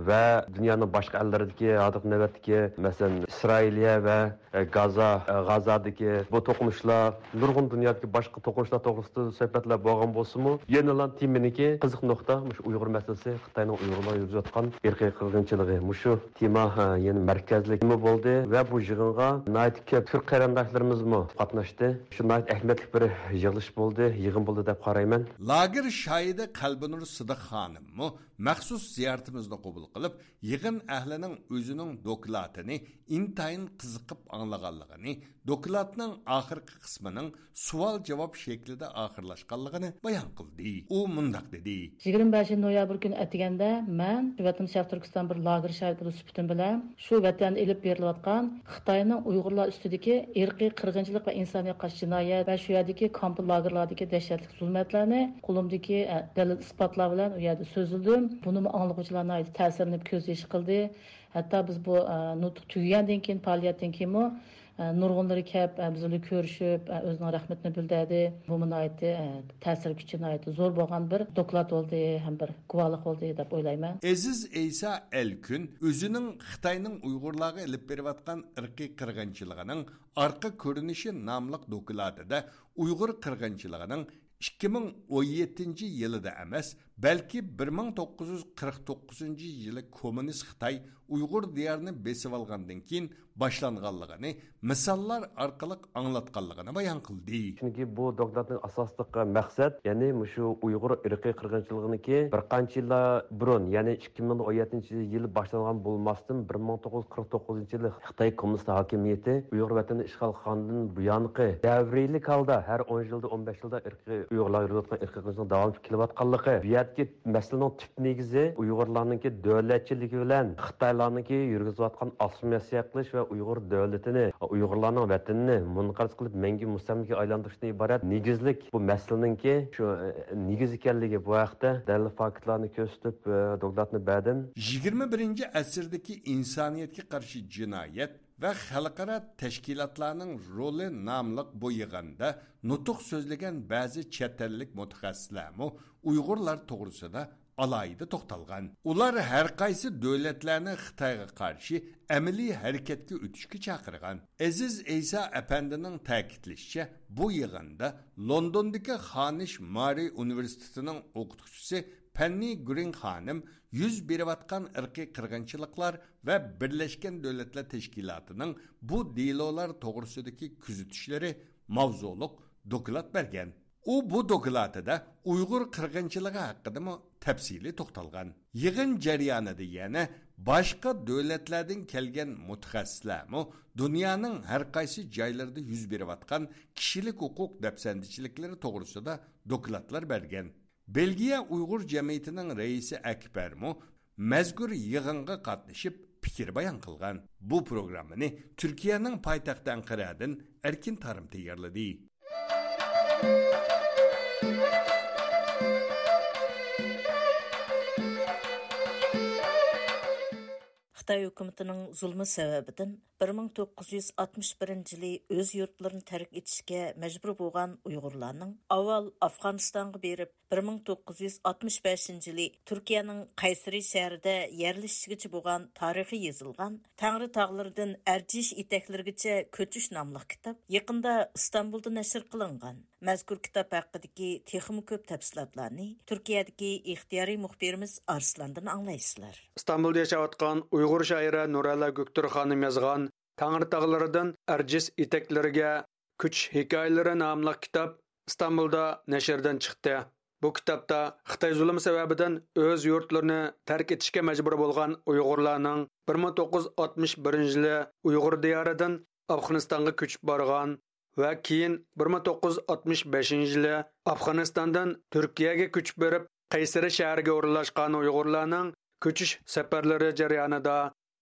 ۋە دۇنيانىڭ باشقا ئەللىرىدىكى ھازىرقى نۆۋەتتىكى، مەسىلەن، ئىسرائىلىيە ۋە، ئە، گازا، ئە، غازادىكى بۇ توقۇنۇشلار، نۇرغۇن دۇنيادىكى باشقا توقۇنۇشلار توغرىسىدا سۆھبەتلەر بولغان بولسىمۇ، يەنىلا تېمىنىڭكى قىزىق نۇقتا مۇشۇ ئۇيغۇر مەسىلىسى، خىتاينىڭ ئۇيغۇرلارغا يۈرگۈزۈۋاتقان ئىرقىي قىرغىنچىلىقى. مۇشۇ تېما، ھە، يەنە مەركەزلىك تېما بولدى ۋە بۇ يىغىنغا ناھايىتى كۆپ تۈرك قېرىنداشلىرىمىزمۇ قاتناشتى. شۇ ناھايىتى ئەھمىيەتلىك بىر يىغىلىش بولدى، يىغىن بولدى دەپ قارايمەن. لاگېر شاھىدى قەلبىنۇر سىدىق خانىممۇ مەخسۇس زىيارىتىمىزنى قوبۇل قىلىپ، يىغىن ئەھلىنىڭ ئۆزىنىڭ دوكلاتىنى ئىنتايىن قىزىقىپ ئاڭلىغانلىقىنى، دوكلاتنىڭ ئاخىرقى قىسمىنىڭ سوئال-جاۋاب شەكلىدە ئاخىرلاشقانلىقىنى بايان قىلدى. ئۇ مۇنداق دېدى. يىگىرمە بەشىنچى نويابىر كۈنى ئەتىگەندە مەن ۋەتىنىم شەرقىي تۈركىستان بىر لاگېر شاھىتى سۈپىتىم بىلەن شۇ ۋەتەندە ئېلىپ بېرىلىۋاتقان خىتاينىڭ ئۇيغۇرلار ئۈستىدىكى ئىرقىي قىرغىنچىلىق ۋە ئىنسانىيەتكە قارشى جىنايەت ۋە شۇ يەردىكى كامپ لاگېرلاردىكى دەھشەتلىك زۇلمەتلەرنى قولۇمدىكى، ئە، دەلىل-ئىسپاتلار بىلەن ئۇ يەردە سۆزلىدىم. بۇنىمۇ ئاڭلىغۇچىلار ناھايىتى تەسىرلىنىپ كۆز يېشى قىلدى. ھەتتا بىز بۇ، ئە، نۇتۇق تۈگىگەندىن كېيىن، پائالىيەتتىن كېيىنمۇ، ئە، نۇرغۇنلىرى كەپ، ئە، بىز بىلەن كۆرۈشۈپ، ئە، ئۆزىنىڭ رەھمىتىنى بىلدۈردى. بۇمۇ ناھايىتى، ئە، تەسىر كۈچى ناھايىتى زور بولغان بىر دوكلات بولدى ھەم بىر گۇۋاھلىق بولدى دەپ ئويلايمەن. ئەزىز ئەيسا ئەلكۈن ئۆزىنىڭ خىتاينىڭ ئۇيغۇرلارغا ئېلىپ بېرىۋاتقان ئىرقىي قىرغىنچىلىقىنىڭ ئارقا كۆرۈنۈشى ناملىق دوكلاتىدا ئۇيغۇر قىرغىنچىلىقىنىڭ ئىككى مىڭ ئون يەتتىنچى يىلىدا ئەمەس، بەلكى بىر مىڭ توققۇز يۈز قىرىق توققۇزىنچى يىلى كوممۇنىست خىتاي ئۇيغۇر دىيارىنى بېسىۋالغاندىن كېيىن باشلانغانلىقىنى مىساللار ئارقىلىق ئاڭلاتقانلىقىنى بايان قىلدى. چۈنكى بۇ دوكلاتنىڭ ئاساسلىق مەقسەت، يەنى مۇشۇ ئۇيغۇر ئىرقىي قىرغىنچىلىقىنىڭكى بىر قانچە يىللار بۇرۇن، يەنى ئىككى مىڭ ئون يەتتىنچى يىل باشلانغان بولماستىن، بىر مىڭ توققۇز يۈز قىرىق توققۇزىنچى يىلى خىتاي كوممۇنىست ھاكىمىيىتى ئۇيغۇر ۋەتىنىنى ئىشغال قىلغاندىن بۇيانقى دەۋرىيلىك ھالدا ھەر ئون يىلدا، ئون بەش يىلدا ئىرقىي ئۇيغۇرلار يۈرۈۋاتقان ئىرقىي قىرغىنچىلىقنىڭ داۋاملىشىپ كېلىۋاتقانلىقى، بۇ يەردىكى مەسىلىنىڭ تۈپ نېگىزى ئۇيغۇرلارنىڭكى دۆلەتچىلىكى بىلەن خىتايلارنىڭكى يۈرگۈزۈۋاتقان ئاسسىمىلياتسىيە قىلىش ۋە ئۇيغۇر دۆلىتىنى، ئۇيغۇرلارنىڭ ۋەتىنىنى مۇنقەرز قىلىپ مەڭگۈ مۇستەملىكىگە ئايلاندۇرۇشتىن ئىبارەت نېگىزلىك بۇ مەسىلىنىڭكى شۇ، ئە، نېگىز ئىكەنلىكى، بۇ ھەقتە دەلىل فاكتلارنى كۆرسىتىپ، ئە، دوكلاتنى بەردىم. يىگىرمە بىرىنچى ئەسىردىكى ئىنسانىيەتكە قارشى جىنايەت ۋە خەلقئارا تەشكىلاتلارنىڭ رولى ناملىق بۇ يىغىندا نۇتۇق سۆزلىگەن بەزى چەت ئەللىك مۇتەخەسسىسلەرمۇ ئۇيغۇرلار توغرىسىدا ئالاھىدە توختالغان. ئۇلار ھەر قايسى دۆلەتلەرنى خىتايغا قارشى ئەمەلىي ھەرىكەتكە ئۆتۈشكە چاقىرغان. ئەزىز ئەيسا ئەپەندىنىڭ تەكىتلىشىچە، بۇ يىغىندا لوندوندىكى خانىش مارى ئۇنىۋېرسىتېتىنىڭ ئوقۇتقۇچىسى پەننى گرىن خانىم يۈز بېرىۋاتقان ئىرقىي قىرغىنچىلىقلار ۋە بىرلەشكەن دۆلەتلەر تەشكىلاتىنىڭ بۇ دېلولار توغرىسىدىكى كۆزىتىشلىرى ماۋزۇلۇق دوكلات بەرگەن. ئۇ بۇ دوكلاتىدا ئۇيغۇر قىرغىنچىلىقى ھەققىدىمۇ تەپسىلىي توختالغان. يىغىن جەريانىدا يەنە باشقا دۆلەتلەردىن كەلگەن مۇتەخەسسىسلەرمۇ دۇنيانىڭ ھەر قايسى جايلىرىدا يۈز بېرىۋاتقان كىشىلىك ھوقۇق دەپسەندىچىلىكلىرى توغرىسىدا دوكلاتلار بەرگەن. بېلگىيە ئۇيغۇر جەمئىيىتىنىڭ رەئىسى ئەكبەرمۇ مەزكۇر يىغىنغا قاتنىشىپ پىكىر بايان قىلغان. بۇ پروگراممىنى تۈركىيەنىڭ پايتەختى ئەنقەرەدىن ئەركىن تارىم تەييارلىدى. خىتاي ھۆكۈمىتىنىڭ زۇلمى سەۋەبىدىن بىر مىڭ توققۇز يۈز ئاتمىش بىرىنچى يىلى ئۆز يۇرتلىرىنى تەرك ئېتىشكە مەجبۇر بولغان ئۇيغۇرلارنىڭ ئاۋۋال ئافغانىستانغا بېرىپ، بىر مىڭ توققۇز يۈز ئاتمىش بەشىنچى يىلى تۈركىيەنىڭ قەيسىرى شەھىرىدە يەرلىشىشىگىچە بولغان تارىخى يېزىلغان تەڭرى تاغلىرىدىن ئەرجىش ئېتەكلىرىگىچە كۆچۈش ناملىق كىتاب يېقىندا ئىستانبۇلدا نەشر قىلىنغان. مەزكۇر كىتاب ھەققىدىكى تېخىمۇ كۆپ تەپسىلاتلارنى تۈركىيەدىكى ئىختىيارىي مۇخبىرىمىز ئارسلاندىن ئاڭلايسىلەر. ئىستانبۇلدا ياشاۋاتقان ئۇيغۇر شائىرە نۇرەللا گۆكتۇر خانىم يازغان تەڭرى تاغلىرىدىن ئەرجىس ئېتەكلىرىگە كۆچۈش ھېكايىلىرى ناملىق كىتاب ئىستانبۇلدا نەشردىن چىقتى. بۇ كىتابتا خىتاي زۇلۇمى سەۋەبىدىن ئۆز يۇرتلىرىنى تەرك ئېتىشكە مەجبۇر بولغان ئۇيغۇرلارنىڭ بىر مىڭ توققۇز يۈز ئاتمىش بىرىنچى يىلى ئۇيغۇر دىيارىدىن ئافغانىستانغا كۆچۈپ بارغان ۋە كېيىن بىر مىڭ توققۇز يۈز ئاتمىش بەشىنچى يىلى ئافغانىستاندىن تۈركىيەگە كۆچۈپ بېرىپ، قەيسەرى شەھىرىگە ئورۇنلاشقان ئۇيغۇرلارنىڭ كۆچۈش سەپەرلىرى جەريانىدا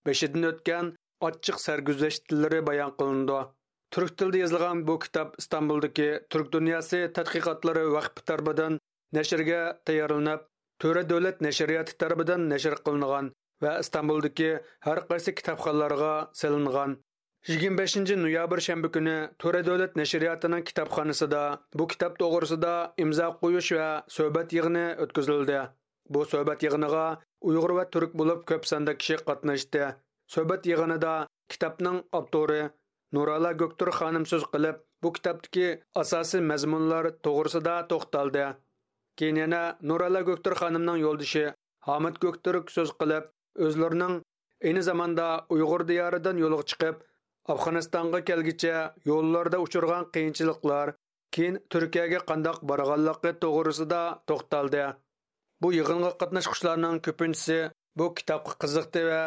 بېشىدىن ئۆتكەن ئاچچىق سەرگۈزەشتلىرى بايان قىلىنىدۇ. تۈرك تىلىدا يېزىلغان بۇ كىتاب ئىستانبۇلدىكى تۈرك دۇنياسى تەتقىقاتلىرى ۋەقپى تەرىپىدىن نەشرگە تەييارلىنىپ، تۆرە دۆلەت نەشرىياتى تەرىپىدىن نەشر قىلىنغان ۋە ئىستانبۇلدىكى ھەر قايسى كىتابخانىلارغا سېلىنغان. يىگىرمە بەشىنچى نويابىر شەنبە كۈنى تۆرە دۆلەت نەشرىياتىنىڭ كىتابخانىسىدا بۇ كىتاب توغرىسىدا ئىمزا قويۇش ۋە سۆھبەت يىغىنى ئۆتكۈزۈلدى. بۇ سۆھبەت يىغىنىغا ئۇيغۇر ۋە تۈرك بولۇپ كۆپ ساندا كىشى قاتناشتى. سۆھبەت يىغىنىدا كىتابنىڭ ئاپتورى نۇراللا گۆكتۇر خانىم سۆز قىلىپ، بۇ كىتابتىكى ئاساسىي مەزمۇنلار توغرىسىدا توختالدى. كېيىن يەنە نۇراللا گۆكتۇر خانىمنىڭ يولدىشى ھامىت گۆكتۈرك سۆز قىلىپ، ئۆزلىرىنىڭ ئەينى زاماندا ئۇيغۇر دىيارىدىن يولغا چىقىپ، ئافغانىستانغا كەلگىچە يوللاردا ئۇچرىغان قىيىنچىلىقلار، كېيىن تۈركىيەگە قانداق بارغانلىقى توغرىسىدا توختالدى. بۇ يىغىنغا قاتناشقۇچىلارنىڭ كۆپىنچىسى بۇ كىتابقا قىزىقتى ۋە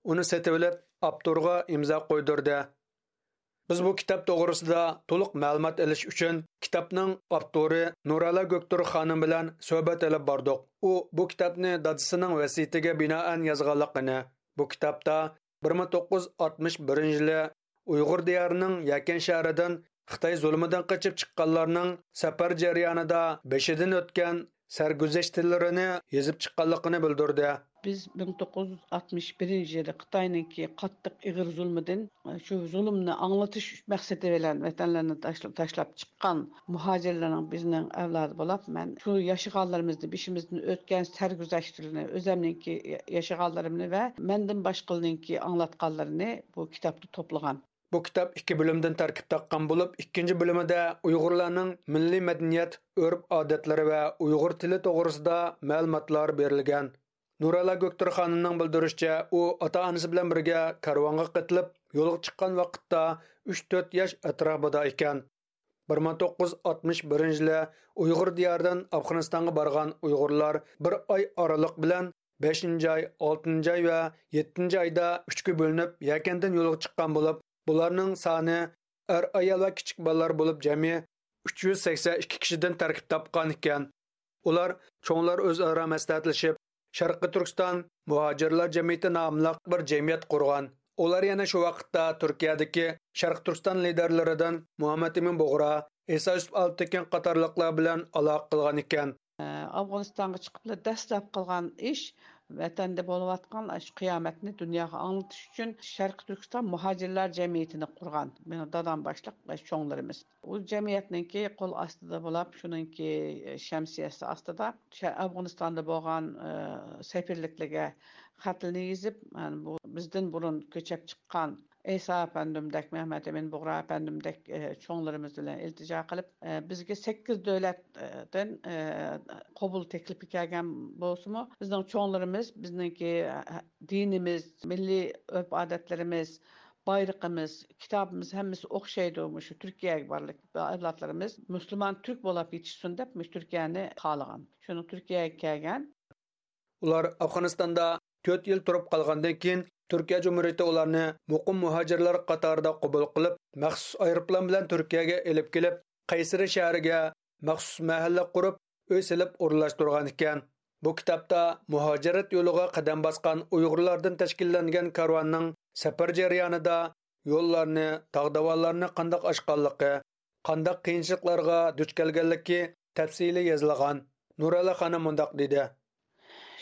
ئۇنى سېتىۋېلىپ، ئاپتورغا ئىمزا قويدۇردى. بىز بۇ كىتاب توغرىسىدا تولۇق مەلۇمات ئېلىش ئۈچۈن كىتابنىڭ ئاپتورى نۇراللا گۆكتۇر خانىم بىلەن سۆھبەت ئېلىپ باردۇق. ئۇ بۇ كىتابنى دادىسىنىڭ ۋەسىيىتىگە بىنائەن يازغانلىقىنى، بۇ كىتابتا بىر مىڭ توققۇز يۈز ئاتمىش بىرىنچى يىلى ئۇيغۇر دىيارىنىڭ يەكەن شەھىرىدىن خىتاي زۇلۇمىدىن قېچىپ چىققانلارنىڭ سەپەر جەريانىدا بېشىدىن ئۆتكەن سەرگۈزەشتلىرىنى يېزىپ چىققانلىقىنى بىلدۈردى. بىز مىڭ توققۇز يۈز ئاتمىش بىرىنچى يىلى خىتاينىڭكى قاتتىق ئېغىر زۇلمىدىن، شۇ زۇلۇمنى ئاڭلىتىش مەقسىتى بىلەن ۋەتەنلىرىنى تاشلا-، تاشلاپ چىققان مۇھاجىرلارنىڭ بىزنىڭ ئەۋلادى بولاپ، مەن شۇ ياشىغانلىرىمىزنى، بېشىمىزدىن ئۆتكەن سەرگۈزەشتلىرىنى، ئۆزەمنىڭكى ياشىغانلىرىمنى ۋە مەندىن باشقىلارنىڭكى ئاڭلاتقانلىرىنى بۇ كىتابتا توپلىغان. بۇ كىتاب ئىككى بۆلۈمدىن تەركىب تاپقان بولۇپ، ئىككىنچى بۆلۈمىدە ئۇيغۇرلارنىڭ مىللىي مەدەنىيەت، ئۆرپ-ئادەتلىرى ۋە ئۇيغۇر تىلى توغرىسىدا مەلۇماتلار بېرىلگەن. نۇراللا گۆكتۈر خانىمنىڭ بىلدۈرۈشىچە، ئۇ ئاتا-ئانىسى بىلەن بىرگە كارۋانغا قېتىلىپ، يولغا چىققان ۋاقىتتا ئۈچ تۆت ياش ئەتراپىدا ئىكەن. بىر مىڭ توققۇز يۈز ئاتمىش بىرىنچى يىلى ئۇيغۇر دىيارىدىن ئافغانىستانغا بارغان ئۇيغۇرلار بىر ئاي ئارىلىق بىلەن بەشىنچى ئاي، ئالتىنچى ئاي ۋە يەتتىنچى ئايدا ئۈچكە بۆلۈنۈپ، يەكەندىن يولغا چىققان بولۇپ، بۇلارنىڭ سانى ئەر-ئايال ۋە كىچىك بالىلار بولۇپ جەمئىي ئۈچ يۈز سەكسەن ئىككى كىشىدىن تەركىب تاپقان ئىكەن. ئۇلار چوڭلار ئۆزئارا مەسلىھەتلىشىپ، شەرقىي تۈركىستان مۇھاجىرلار جەمئىيىتى ناملىق بىر جەمئىيەت قۇرغان. ئۇلار يەنە شۇ ۋاقىتتا تۈركىيەدىكى شەرقىي تۈركىستان لىدەرلىرىدىن مۇھەممەت ئىمىن بۇغرا، ئىسا يۈسۈپ ئالپتېكىن قاتارلىقلار بىلەن ئالاقە قىلغان ئىكەن. ئافغانىستانغا چىقىپلا دەسلەپ قىلغان ئىش، ۋەتەندە بولۇۋاتقان ئاشۇ قىيامەتنى دۇنياغا ئاڭلىتىش ئۈچۈن شەرقىي تۈركىستان مۇھاجىرلار جەمئىيىتىنى قۇرغان مېنىڭ دادام باشلىق ۋە چوڭلىرىمىز. ئۇ جەمئىيەتنىڭكى قول ئاستىدا بولاپ، شۇنىڭكى شەمسىيەسى ئاستىدا شە-، ئافغانىستاندا بولغان، ئە، سەپىرلىكلەرگە خەتلىرىنى يېزىپ، يەنى بۇ بىزدىن بۇرۇن كۆچۈپ چىققان ئەيسا ئەپەندىمدەك، مەمەت ئەمىن بۇغرا ئەپەندىمدەك، ئە، چوڭلىرىمىز بىلەن ئىلتىجا قىلىپ، ئە، بىزگە سەككىز دۆلەتتىن، ئە، قوبۇل تەكلىپى كەلگەن بولسىمۇ، بىزنىڭ چوڭلىرىمىز، بىزنىڭكى، ئە، دىنىمىز، مىللىي ئۆرپ-ئادەتلىرىمىز، بايرىقىمىز، كىتابىمىز ھەممىسى ئوخشايدۇ. مۇشۇ تۈركىيەگە بارلىق ئەۋلادلىرىمىز مۇسۇلمان تۈرك بولاپ يېتىشسۇن دەپ، مۇشۇ تۈركىيەنى خالىغان. شۇنىڭ تۈركىيەگە كەلگەن. ئۇلار ئافغانىستاندا تۆت يىل تۇرۇپ قالغاندىن كېيىن، تۈركىيە جۇمھۇرىيىتى ئۇلارنى مۇقىم مۇھاجىرلار قاتارىدا قوبۇل قىلىپ، مەخسۇس ئايروپىلان بىلەن تۈركىيەگە ئېلىپ كېلىپ، قەيسىرى شەھىرىگە مەخسۇس مەھەللە قۇرۇپ، ئۆي سېلىپ ئورۇنلاشتۇرغان ئىكەن. بۇ كىتابتا مۇھاجىرەت يولىغا قەدەم باسقان ئۇيغۇرلاردىن تەشكىللەنگەن كارۋاننىڭ سەپەر جەريانىدا يوللارنى، تاغ داۋانلارنى قانداق ئاشقانلىقى، قانداق قىيىنچىلىقلارغا دۇچ كەلگەنلىكى تەپسىلىي يېزىلغان. نۇرەللا خانىم مۇنداق دېدى.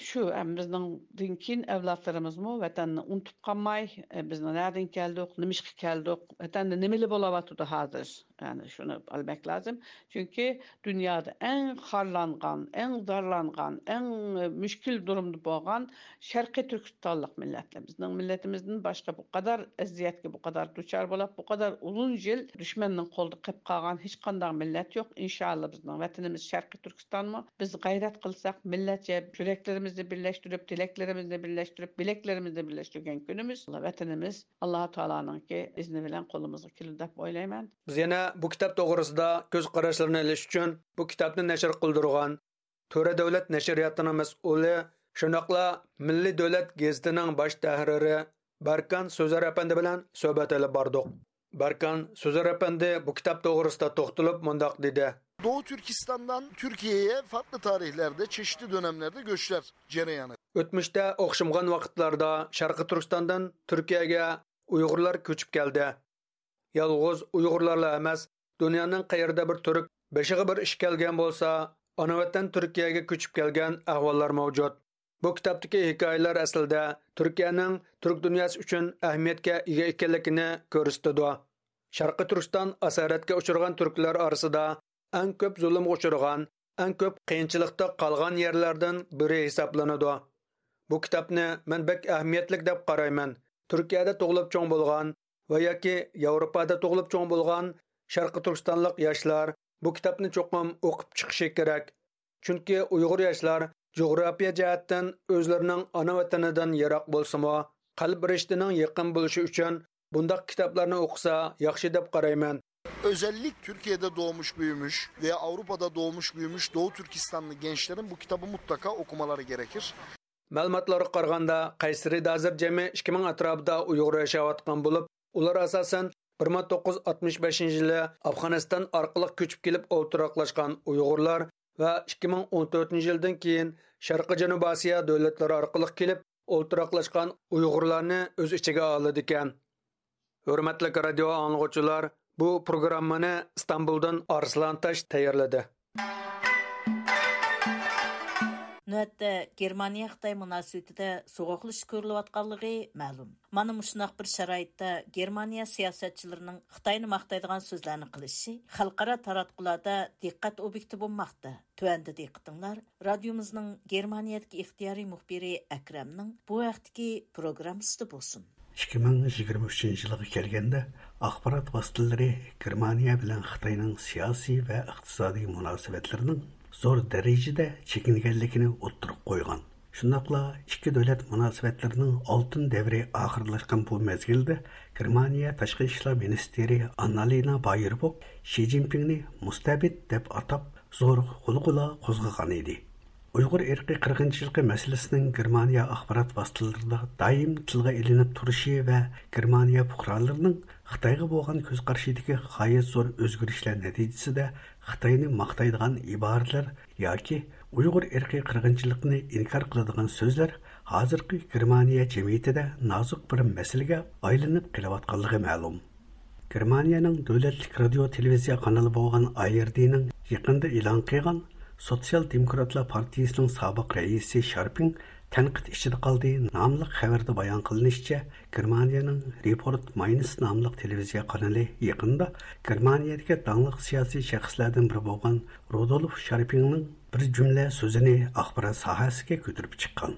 شۇ، ئەم، بىزنىڭدىن كېيىن ئەۋلادلىرىمىزمۇ ۋەتەننى ئۇنتۇپ قالماي، ئە، بىزنىڭ نەدىن كەلدۇق، نېمىشقا كەلدۇق، ۋەتەندە نېمىلەر بولۇۋاتىدۇ ھازىر؟ يەنى شۇنى بىلمەك لازىم. چۈنكى دۇنيادا ئەڭ خارلانغان، ئەڭ زارلانغان، ئەڭ، ئە، مۈشكۈل دۇرۇمدا بولغان شەرقىي تۈركىستانلىق مىللەتلەر. بىزنىڭ مىللىتىمىزدىن باشقا بۇ قەدەر ئەزىيەتكە بۇ قەدەر دۇچار بولاپ، بۇ قەدەر ئۇزۇن يىل دۈشمەننىڭ قولىدا قېلىپ قالغان ھېچقانداق مىللەت يوق. ئىنشائاللا، بىزنىڭ ۋەتىنىمىز شەرقىي تۈركىستانمۇ. بىز غەيرەت قىلساق، مىللەتچە يۈرەكلىرىمىزنى بىرلەشتۈرۈپ، تىلەكلىرىمىزنى بىرلەشتۈرۈپ، بىلەكلىرىمىزنى بىرلەشتۈرگەن كۈنىمىز ۋەتىنىمىز ئاللا تائالانىڭكى ئىزنى بىلەن قولىمىزغا كېلىدۇ دەپ ئويلايمەن. بىز يەنە بۇ كىتاب توغرىسىدا كۆز قاراشلىرىنى ئېلىش ئۈچۈن بۇ كىتابنى نەشر قىلدۇرغان تۆرە دۆلەت نەشرىياتىنىڭ مەسئۇلى، شۇنداقلا مىللىي دۆلەت گېزىتىنىڭ باش تەھرىرى بەركان سۆزەر ئەپەندى بىلەن سۆھبەت ئېلىپ باردۇق. بەركان سۆزەر ئەپەندى بۇ كىتاب توغرىسىدا توختىلىپ مۇنداق دېدى. Doğu Türkistan'dan Türkiye'ye farklı tarihlerde, çeşitli dönemlerde göçler cereyanı. ئۆتمۈشتە ئوخشىمىغان ۋاقىتلاردا شەرقىي تۈركىستاندىن تۈركىيەگە ئۇيغۇرلار كۆچۈپ كەلدى. يالغۇز ئۇيغۇرلارلا ئەمەس، دۇنيانىڭ قەيەردە بىر تۈرك بېشىغا بىر ئىش كەلگەن بولسا، ئانا ۋەتەن تۈركىيەگە كۆچۈپ كەلگەن ئەھۋاللار مەۋجۇت. بۇ كىتابتىكى ھېكايىلەر ئەسلىدە تۈركىيەنىڭ تۈرك دۇنياسى ئۈچۈن ئەھمىيەتكە ئىگە ئىكەنلىكىنى كۆرسىتىدۇ. شەرقىي تۈركىستان ئاسارەتكە ئۇچرىغان تۈركلەر ئارىسىدا ئەڭ كۆپ زۇلۇمغا ئۇچرىغان، ئەڭ كۆپ قىيىنچىلىقتا قالغان يەرلەردىن بىرى ھېسابلىنىدۇ. بۇ كىتابنى مەن بەك ئەھمىيەتلىك دەپ قارايمەن. تۈركىيەدە تۇغۇلۇپ چوڭ بولغان ۋە ياكى ياۋروپادا تۇغۇلۇپ چوڭ بولغان شەرقىي تۈركىستانلىق ياشلار بۇ كىتابنى چوقۇم ئوقۇپ چىقىشى كېرەك. چۈنكى ئۇيغۇر ياشلار جۇغراپىيە جەھەتتىن ئۆزلىرىنىڭ ئانا ۋەتىنىدىن يىراق بولسىمۇ، قەلب رىشتىنىڭ يېقىن بولۇشى ئۈچۈن بۇنداق كىتابلارنى ئوقۇسا ياخشى دەپ قارايمەن. Özellik Türkiye'de doğmuş büyümüş ve Avrupa'da doğmuş büyümüş Doğu Türkistanlı gençlerin bu kitabı mutlaka okumaları gerekir. مەلۇماتلارغا قارىغاندا، قەيسىرىدە ھازىر جەمئىي ئىككى مىڭ ئەتراپىدا ئۇيغۇر ياشاۋاتقان بولۇپ، ئۇلار ئاساسەن بىر مىڭ توققۇز يۈز ئاتمىش بەشىنچى يىلى ئافغانىستان ئارقىلىق كۆچۈپ كېلىپ ئولتۇراقلاشقان ئۇيغۇرلار ۋە ئىككى مىڭ ئون تۆتىنچى يىلدىن كېيىن شەرقىي جەنۇبىي ئاسىيا دۆلەتلىرى ئارقىلىق كېلىپ ئولتۇراقلاشقان ئۇيغۇرلارنى ئۆز ئىچىگە ئالىدىكەن. ھۆرمەتلىك رادىيو ئاڭلىغۇچىلار، بۇ پروگراممىنى ئىستانبۇلدىن ئارسلان تاش تەييارلىدى. نۆۋەتتە گېرمانىيە-خىتاي مۇناسىۋىتىدە سوغۇقلىشىش كۆرۈلۈۋاتقانلىقى مەلۇم. مانا مۇشۇنداق بىر شارائىتتا گېرمانىيە سىياسەتچىلىرىنىڭ خىتاينى ماختايدىغان سۆزلەرنى قىلىشى خەلقئارا تاراتقۇلاردا دىققەت ئوبيېكتى بولماقتا. تۆۋەندە دىققىتىڭلار رادىيومىزنىڭ گېرمانىيەدىكى ئىختىيارىي مۇخبىرى ئەكرەمنىڭ بۇ ھەقتىكى پروگراممىسىدا بولسۇن. ئىككى مىڭ يىگىرمە ئۈچىنچى يىلغا كەلگەندە، ئاخبارات ۋاسىتىلىرى گېرمانىيە بىلەن خىتاينىڭ سىياسىي ۋە ئىقتىسادىي مۇناسىۋەتلىرىنىڭ زور دەرىجىدە چېكىنگەنلىكىنى ئوتتۇرىغا قويغان. شۇنداقلا ئىككى دۆلەت مۇناسىۋەتلىرىنىڭ ئالتۇن دەۋرى ئاخىرلاشقان بۇ مەزگىلدە گېرمانىيە تاشقى ئىشلار مىنىستىرى ئاننالىنا بايېربوك شى جىنپىڭنى مۇستەبىت دەپ ئاتاپ، زور غۇلغۇلا قوزغىغان ئىدى. ئۇيغۇر ئىرقىي قىرغىنچىلىقى مەسىلىسىنىڭ گېرمانىيە ئاخبارات ۋاسىتىلىرىدا دائىم تىلغا ئېلىنىپ تۇرۇشى ۋە گېرمانىيە پۇقرالىرىنىڭ خىتايغا بولغان كۆز قارىشىدىكى غايەت زور ئۆزگىرىشلەر نەتىجىسىدە خىتاينى ماختايدىغان ئىبارىلەر ياكى ئۇيغۇر ئىرقىي قىرغىنچىلىقىنى ئىنكار قىلىدىغان سۆزلەر ھازىرقى گېرمانىيە جەمئىيىتىدە نازۇك بىر مەسىلىگە ئايلىنىپ قېلىۋاتقانلىقى مەلۇم. گېرمانىيەنىڭ دۆلەتلىك رادىيو تېلېۋىزىيە قانىلى بولغان ئاي ئېر دىنىڭ يېقىندا ئېلان قىلغان سوتسىيال دېموكراتلار پارتىيىسىنىڭ سابىق رەئىسى شارپىڭ تەنقىد ئىچىدە قالدى ناملىق خەۋەردە بايان قىلىنىشىچە، گېرمانىيەنىڭ رېپورت ماينس ناملىق تېلېۋىزىيە قانىلى يېقىندا گېرمانىيەدىكى داڭلىق سىياسىي شەخسلەردىن بىرى بولغان رۇدولف شارپىڭنىڭ بىر جۈملە سۆزىنى ئاخبارات ساھەسىگە كۆتۈرۈپ چىققان.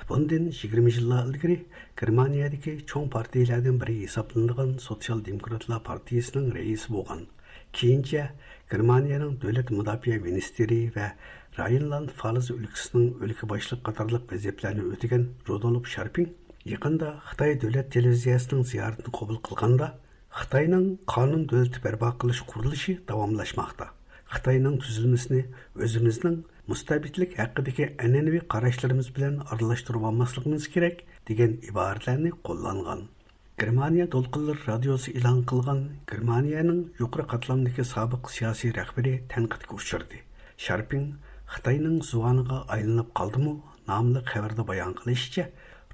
بۇندىن يىگىرمە يىللار ئىلگىرى گېرمانىيەدىكى چوڭ پارتىيىلەردىن بىرى ھېسابلىنىدىغان سوتسىيال دېموكراتلار پارتىيىسىنىڭ رەئىسى بولغان، كېيىنچە گېرمانىيەنىڭ دۆلەت مۇداپىئە مىنىستىرى ۋە راينلاند فالز ئۆلكىسىنىڭ ئۆلكە باشلىقى قاتارلىق ۋەزىپىلەرنى ئۆتىگەن رۇدولف شارپىڭ يېقىندا خىتاي دۆلەت تېلېۋىزىيەسىنىڭ زىيارىتىنى قوبۇل قىلغاندا، خىتاينىڭ قانۇن دۆلىتى بەرپا قىلىش قۇرۇلۇشى داۋاملاشماقتا. خىتاينىڭ تۈزۈلمىسىنى ئۆزىمىزنىڭ مۇستەبىتلىك ھەققىدىكى ئەنئەنىۋى قاراشلىرىمىز بىلەن ئارىلاشتۇرۇۋالماسلىقىمىز كېرەك، دېگەن ئىبارىلەرنى قوللانغان. گېرمانىيە دولقۇنلىرى رادىيوسى ئېلان قىلغان گېرمانىيەنىڭ يۇقىرى قاتلامدىكى سابىق سىياسىي رەھبىرى تەنقىدكە ئۇچرىدى. شارپىڭ خىتاينىڭ زۇۋانىغا ئايلىنىپ قالدىمۇ؟ ناملىق خەۋەردە بايان قىلىشىچە،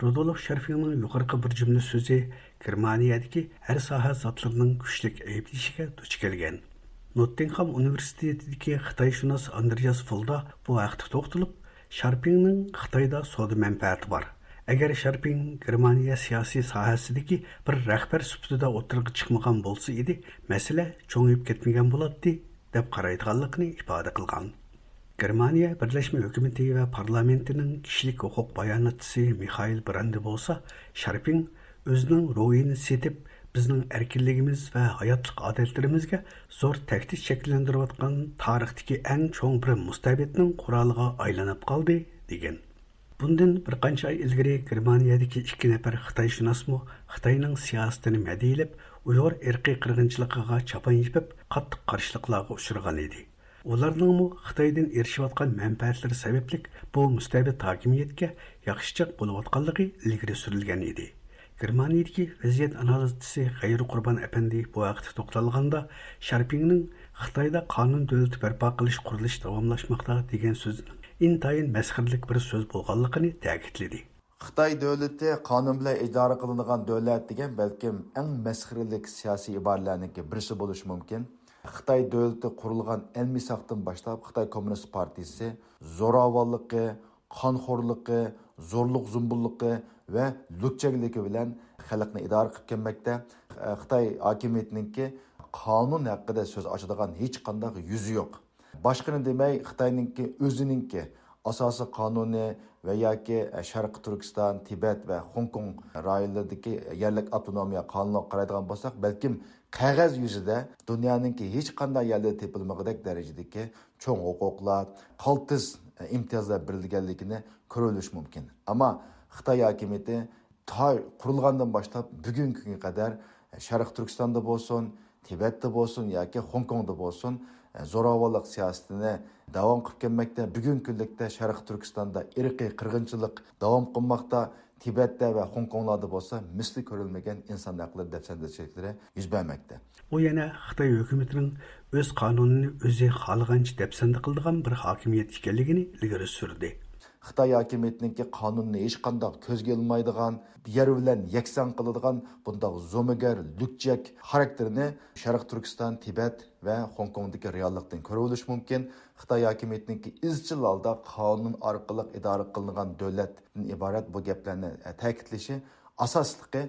رۇدولف شارپىڭنىڭ يۇقىرىقى بىر جۈملە سۆزى گېرمانىيەدىكى ھەر ساھە زاتلىرىنىڭ كۈچلۈك ئەيىبلىشىگە دۇچ كەلگەن. نوتتىنخام ئۇنىۋېرسىتېتىدىكى خىتايشۇناس ئاندرېياس فولدا بۇ ھەقتە توختىلىپ، شارپىڭنىڭ خىتايدا سودا مەنپەئەتى بار. ئەگەر شارپىڭ گېرمانىيە سىياسىي ساھەسىدىكى بىر رەھبەر سۈپىتىدە ئوتتۇرىغا چىقمىغان بولسا ئىدى، مەسىلە چوڭىيىپ كەتمىگەن بولاتتى، دەپ قارايدىغانلىقىنى ئىپادە قىلغان. گېرمانىيە بىرلەشمە ھۆكۈمىتى ۋە پارلامېنتىنىڭ كىشىلىك ھوقۇق باياناتچىسى مىخائىل براندى بولسا، شارپىڭ ئۆزىنىڭ روھىنى سېتىپ، بىزنىڭ ئەركىنلىكىمىز ۋە ھاياتلىق ئادەتلىرىمىزگە زور تەھدىت شەكىللەندۈرۈۋاتقان تارىختىكى ئەڭ چوڭ بىر مۇستەبىتنىڭ قورالىغا ئايلىنىپ قالدى، دېگەن. بۇندىن بىر قانچە ئاي ئىلگىرى گېرمانىيەدىكى ئىككى نەپەر خىتايشۇناسمۇ خىتاينىڭ سىياسىتىنى مەدھىيلەپ، ئۇيغۇر ئىرقىي قىرغىنچىلىقىغا چاپان يېپىپ، قاتتىق قارشىلىقلارغا ئۇچرىغان ئىدى. ئۇلارنىڭمۇ خىتايدىن ئېرىشىۋاتقان مەنپەئەتلىرى سەۋەبلىك بۇ مۇستەبىت ھاكىمىيەتكە ياخشىچاق بولۇۋاتقانلىقى ئىلگىرى سۈرۈلگەن ئىدى. گېرمانىيىدىكى ۋەزىيەت ئانالىزچىسى غەيرى قۇربان ئەپەندى بۇ ھەقتە توختالغاندا، شارپىڭنىڭ خىتايدا قانۇن دۆلىتى بەرپا قىلىش قۇرۇلۇشى داۋاملاشماقتا دېگەن سۆزىنىڭ ئىنتايىن مەسخىرىلىك بىر سۆز بولغانلىقىنى تەكىتلىدى. خىتاي دۆلىتى قانۇن بىلەن ئىدارە قىلىنىدىغان دۆلەت دېگەن بەلكىم ئەڭ مەسخىرىلىك سىياسىي ئىبارىلەرنىڭكى بىرسى بولۇشى مۇمكىن. خىتاي دۆلىتى قۇرۇلغان ئەلمىساقتىن باشلاپ خىتاي كوممۇنىست پارتىيىسى زوراۋانلىقى، قانخورلۇقى، زورلۇق زومبۇللۇقى ۋە لۈكچەكلىكى بىلەن خەلقنى ئىدارە قىلىپ كەلمەكتە. خىتاي ھاكىمىيىتىنىڭكى قانۇن ھەققىدە سۆز ئاچىدىغان ھېچقانداق يۈزى يوق. باشقىنى دېمەي، خىتاينىڭكى ئۆزىنىڭكى ئاساسىي قانۇنى ۋە ياكى شەرقىي تۈركىستان، تىبەت ۋە خوڭكوڭ رايونلىرىدىكى يەرلىك ئاپتونومىيە قانۇنىغا قارايدىغان بولساق، بەلكىم قەغەز يۈزىدە دۇنيانىڭكى ھېچقانداق يەردە تېپىلمىغۇدەك دەرىجىدىكى چوڭ ھوقۇقلار، قالتىس ئىمتىيازلار بېرىلگەنلىكىنى كۆرۈۋېلىش مۇمكىن. ئەمما خىتاي ھاكىمىيىتى تا قۇرۇلغاندىن باشلاپ بۈگۈنكى كۈنگە قەدەر شەرقىي تۈركىستاندا بولسۇن، تىبەتتە بولسۇن ياكى خوڭكوڭدا بولسۇن، زوراۋانلىق سىياسىتىنى داۋام قىلىپ كەلمەكتە. بۈگۈنكى كۈنلۈكتە شەرقىي تۈركىستاندا ئىرقىي قىرغىنچىلىق داۋام قىلماقتا. تىبەتتە ۋە خوڭكوڭلاردا بولسا مىسلى كۆرۈلمىگەن ئىنسان ھەقلىرى دەپسەندىچىلىكلىرى يۈز بەرمەكتە. ئۇ يەنە خىتاي ھۆكۈمىتىنىڭ ئۆز قانۇنىنى ئۆزى خالىغانچە دەپسەندە قىلىدىغان بىر ھاكىمىيەت ئىكەنلىكىنى ئىلگىرى سۈردى. خىتاي ھاكىمىيىتىنىڭكى قانۇننى ھېچقانداق كۆزگە ئىلمايدىغان، يەر بىلەن يەكسان قىلىدىغان بۇنداق زومىگەر، لۈكچەك خاراكتېرىنى شەرقىي تۈركىستان، تىبەت ۋە خوڭكوڭدىكى رېئاللىقتىن كۆرۈۋېلىش مۇمكىن. خىتاي ھاكىمىيىتىنىڭكى ئىزچىل ھالدا قانۇن ئارقىلىق ئىدارە قىلىنغان دۆلەتتىن ئىبارەت بۇ گەپلەرنى تەكىتلىشى ئاساسلىقى،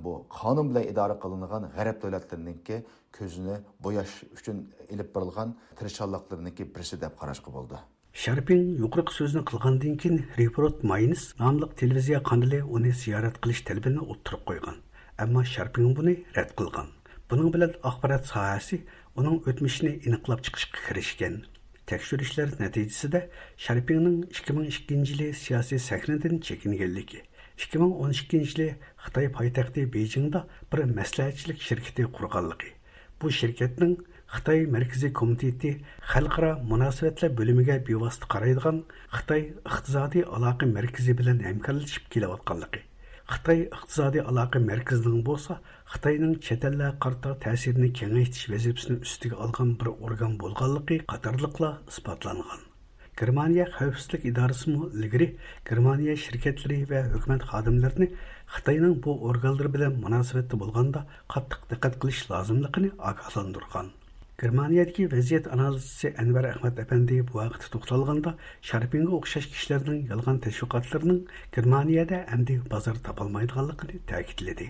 بۇ قانۇن بىلەن ئىدارە قىلىنغان غەرب دۆلەتلىرىنىڭكى كۆزىنى بوياش ئۈچۈن ئېلىپ بېرىلغان تىرىشچانلىقلىرىنىڭكى بىرسى دەپ قاراشقا بولىدۇ. شارپىڭ يۇقىرىقى سۆزنى قىلغاندىن كېيىن، رېپورت ماينس ناملىق تېلېۋىزىيە قانىلى ئۇنى زىيارەت قىلىش تەلىپىنى ئوتتۇرىغا قويغان. ئەمما شارپىڭ بۇنى رەت قىلغان. بۇنىڭ بىلەن ئاخبارات ساھەسى ئۇنىڭ ئۆتمۈشىنى ئېنىقلاپ چىقىشقا كىرىشكەن. تەكشۈرۈشلەر نەتىجىسىدە شارپىڭنىڭ ئىككى مىڭ ئىككىنچى يىلى سىياسىي سەھنىدىن چېكىنگەنلىكى، ئىككى مىڭ ئون ئىككىنچى يىلى خىتاي پايتەختى بېيجىڭدا بىر مەسلىھەتچىلىك شىركىتى قۇرغانلىقى، بۇ شىركەتنىڭ خىتاي مەركىزىي كومىتېتى خەلقئارا مۇناسىۋەتلەر بۆلۈمىگە بىۋاسىتە قارايدىغان خىتاي ئىقتىسادىي ئالاقە مەركىزى بىلەن ھەمكارلىشىپ كېلىۋاتقانلىقى، خىتاي ئىقتىسادىي ئالاقە مەركىزىنىڭ بولسا خىتاينىڭ چەت ئەللەرگە قارىتا تەسىرىنى كېڭەيتىش ۋەزىپىسىنى ئۈستىگە ئالغان بىر ئورگان بولغانلىقى قاتارلىقلار ئىسپاتلانغان. گېرمانىيە خەۋپسىزلىك ئىدارىسىمۇ ئىلگىرى گېرمانىيە شىركەتلىرى ۋە ھۆكۈمەت خادىملىرىنى خىتاينىڭ بۇ ئورگانلىرى بىلەن مۇناسىۋەتتە بولغاندا قاتتىق دىققەت قىلىش لازىملىقىنى ئاگاھلاندۇرغان. گېرمانىيەدىكى ۋەزىيەت ئانالىزچىسى ئەنۋەر ئەخمەت ئەپەندى بۇ ھەقتە توختالغاندا، شارپىڭغا ئوخشاش كىشىلەرنىڭ يالغان تەشۋىقاتلىرىنىڭ گېرمانىيەدە ئەمدى بازار تاپالمايدىغانلىقىنى تەكىتلىدى.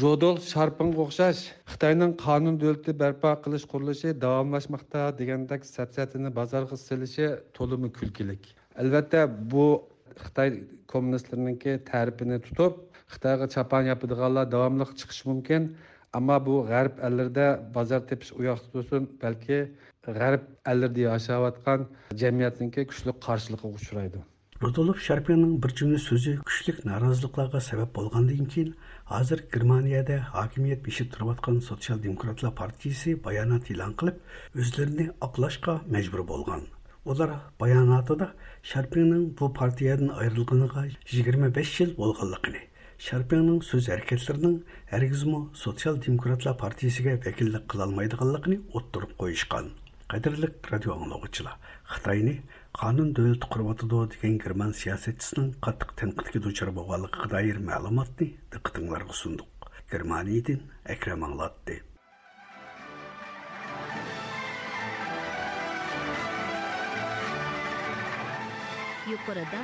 رودولف شارپىڭغا ئوخشاش خىتاينىڭ قانۇن دۆلىتى بەرپا قىلىش قۇرۇلۇشى داۋاملاشماقتا دېگەندەك سەپسەتىنى بازارغا سېلىشى تولىمۇ كۈلكىلىك. ئەلۋەتتە، بۇ خىتاي كوممۇنىستلىرىنىڭكى تەرىپىنى تۇتۇپ، خىتايغا چاپان ياپىدىغانلار داۋاملىق چىقىشى مۇمكىن. ئەمما بۇ غەرب ئەللىرىدە بازار تېپىش ئۇ ياقتا تۇرسۇن، بەلكى غەرب ئەللىرىدە ياشاۋاتقان جەمئىيەتنىڭكى كۈچلۈك قارشىلىقىغا ئۇچرايدۇ. رۇدولف شارپىڭنىڭ بىر جۈملە سۆزى كۈچلۈك نارازىلىقلارغا سەۋەب بولغاندىن كېيىن، ھازىر گېرمانىيەدە ھاكىمىيەت بېشىدا تۇرۇۋاتقان سوتسىيال دېموكراتلار پارتىيىسى بايانات ئېلان قىلىپ، ئۆزلىرىنى ئاقلاشقا مەجبۇر بولغان. ئۇلار باياناتىدا شارپىڭنىڭ بۇ پارتىيەدىن ئايرىلغىنىغا يىگىرمە بەش يىل بولغانلىقىنى، شارپىڭنىڭ سۆز ھەرىكەتلىرىنىڭ ھەرگىزمۇ سوتسىيال دېموكراتلار پارتىيىسىگە ۋەكىللىك قىلالمايدىغانلىقىنى ئوتتۇرىغا قويۇشقان. قەدىرلىك رادىيو ئاڭلىغۇچىلار، خىتاينى قانۇن دۆلىتى قۇرۇۋاتىدۇ دېگەن گېرمان سىياسەتچىسىنىڭ قاتتىق تەنقىدكە دۇچار بولغانلىقىغا دائىر مەلۇماتنى دىققىتىڭلارغا سۇندۇق. گېرمانىيەدىن ئەكرەم ئاڭلاتتى. يۇقىرىدا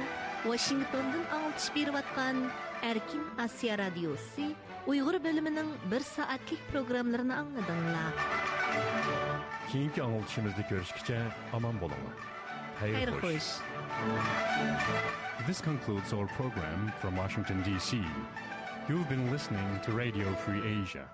ۋاشىنگتوندىن ئاڭلىتىش بېرىۋاتقان ئەركىن ئاسىيا رادىيوسى ئۇيغۇر بۆلۈمىنىڭ بىر سائەتلىك پروگراممىلىرىنى ئاڭلىدىڭلار. كېيىنكى ئاڭلىتىشىمىزدا كۆرۈشكىچە ئامان بولۇڭلار. خەير خوش. This concludes our program from Washington, D C. You've been listening to Radio Free Asia.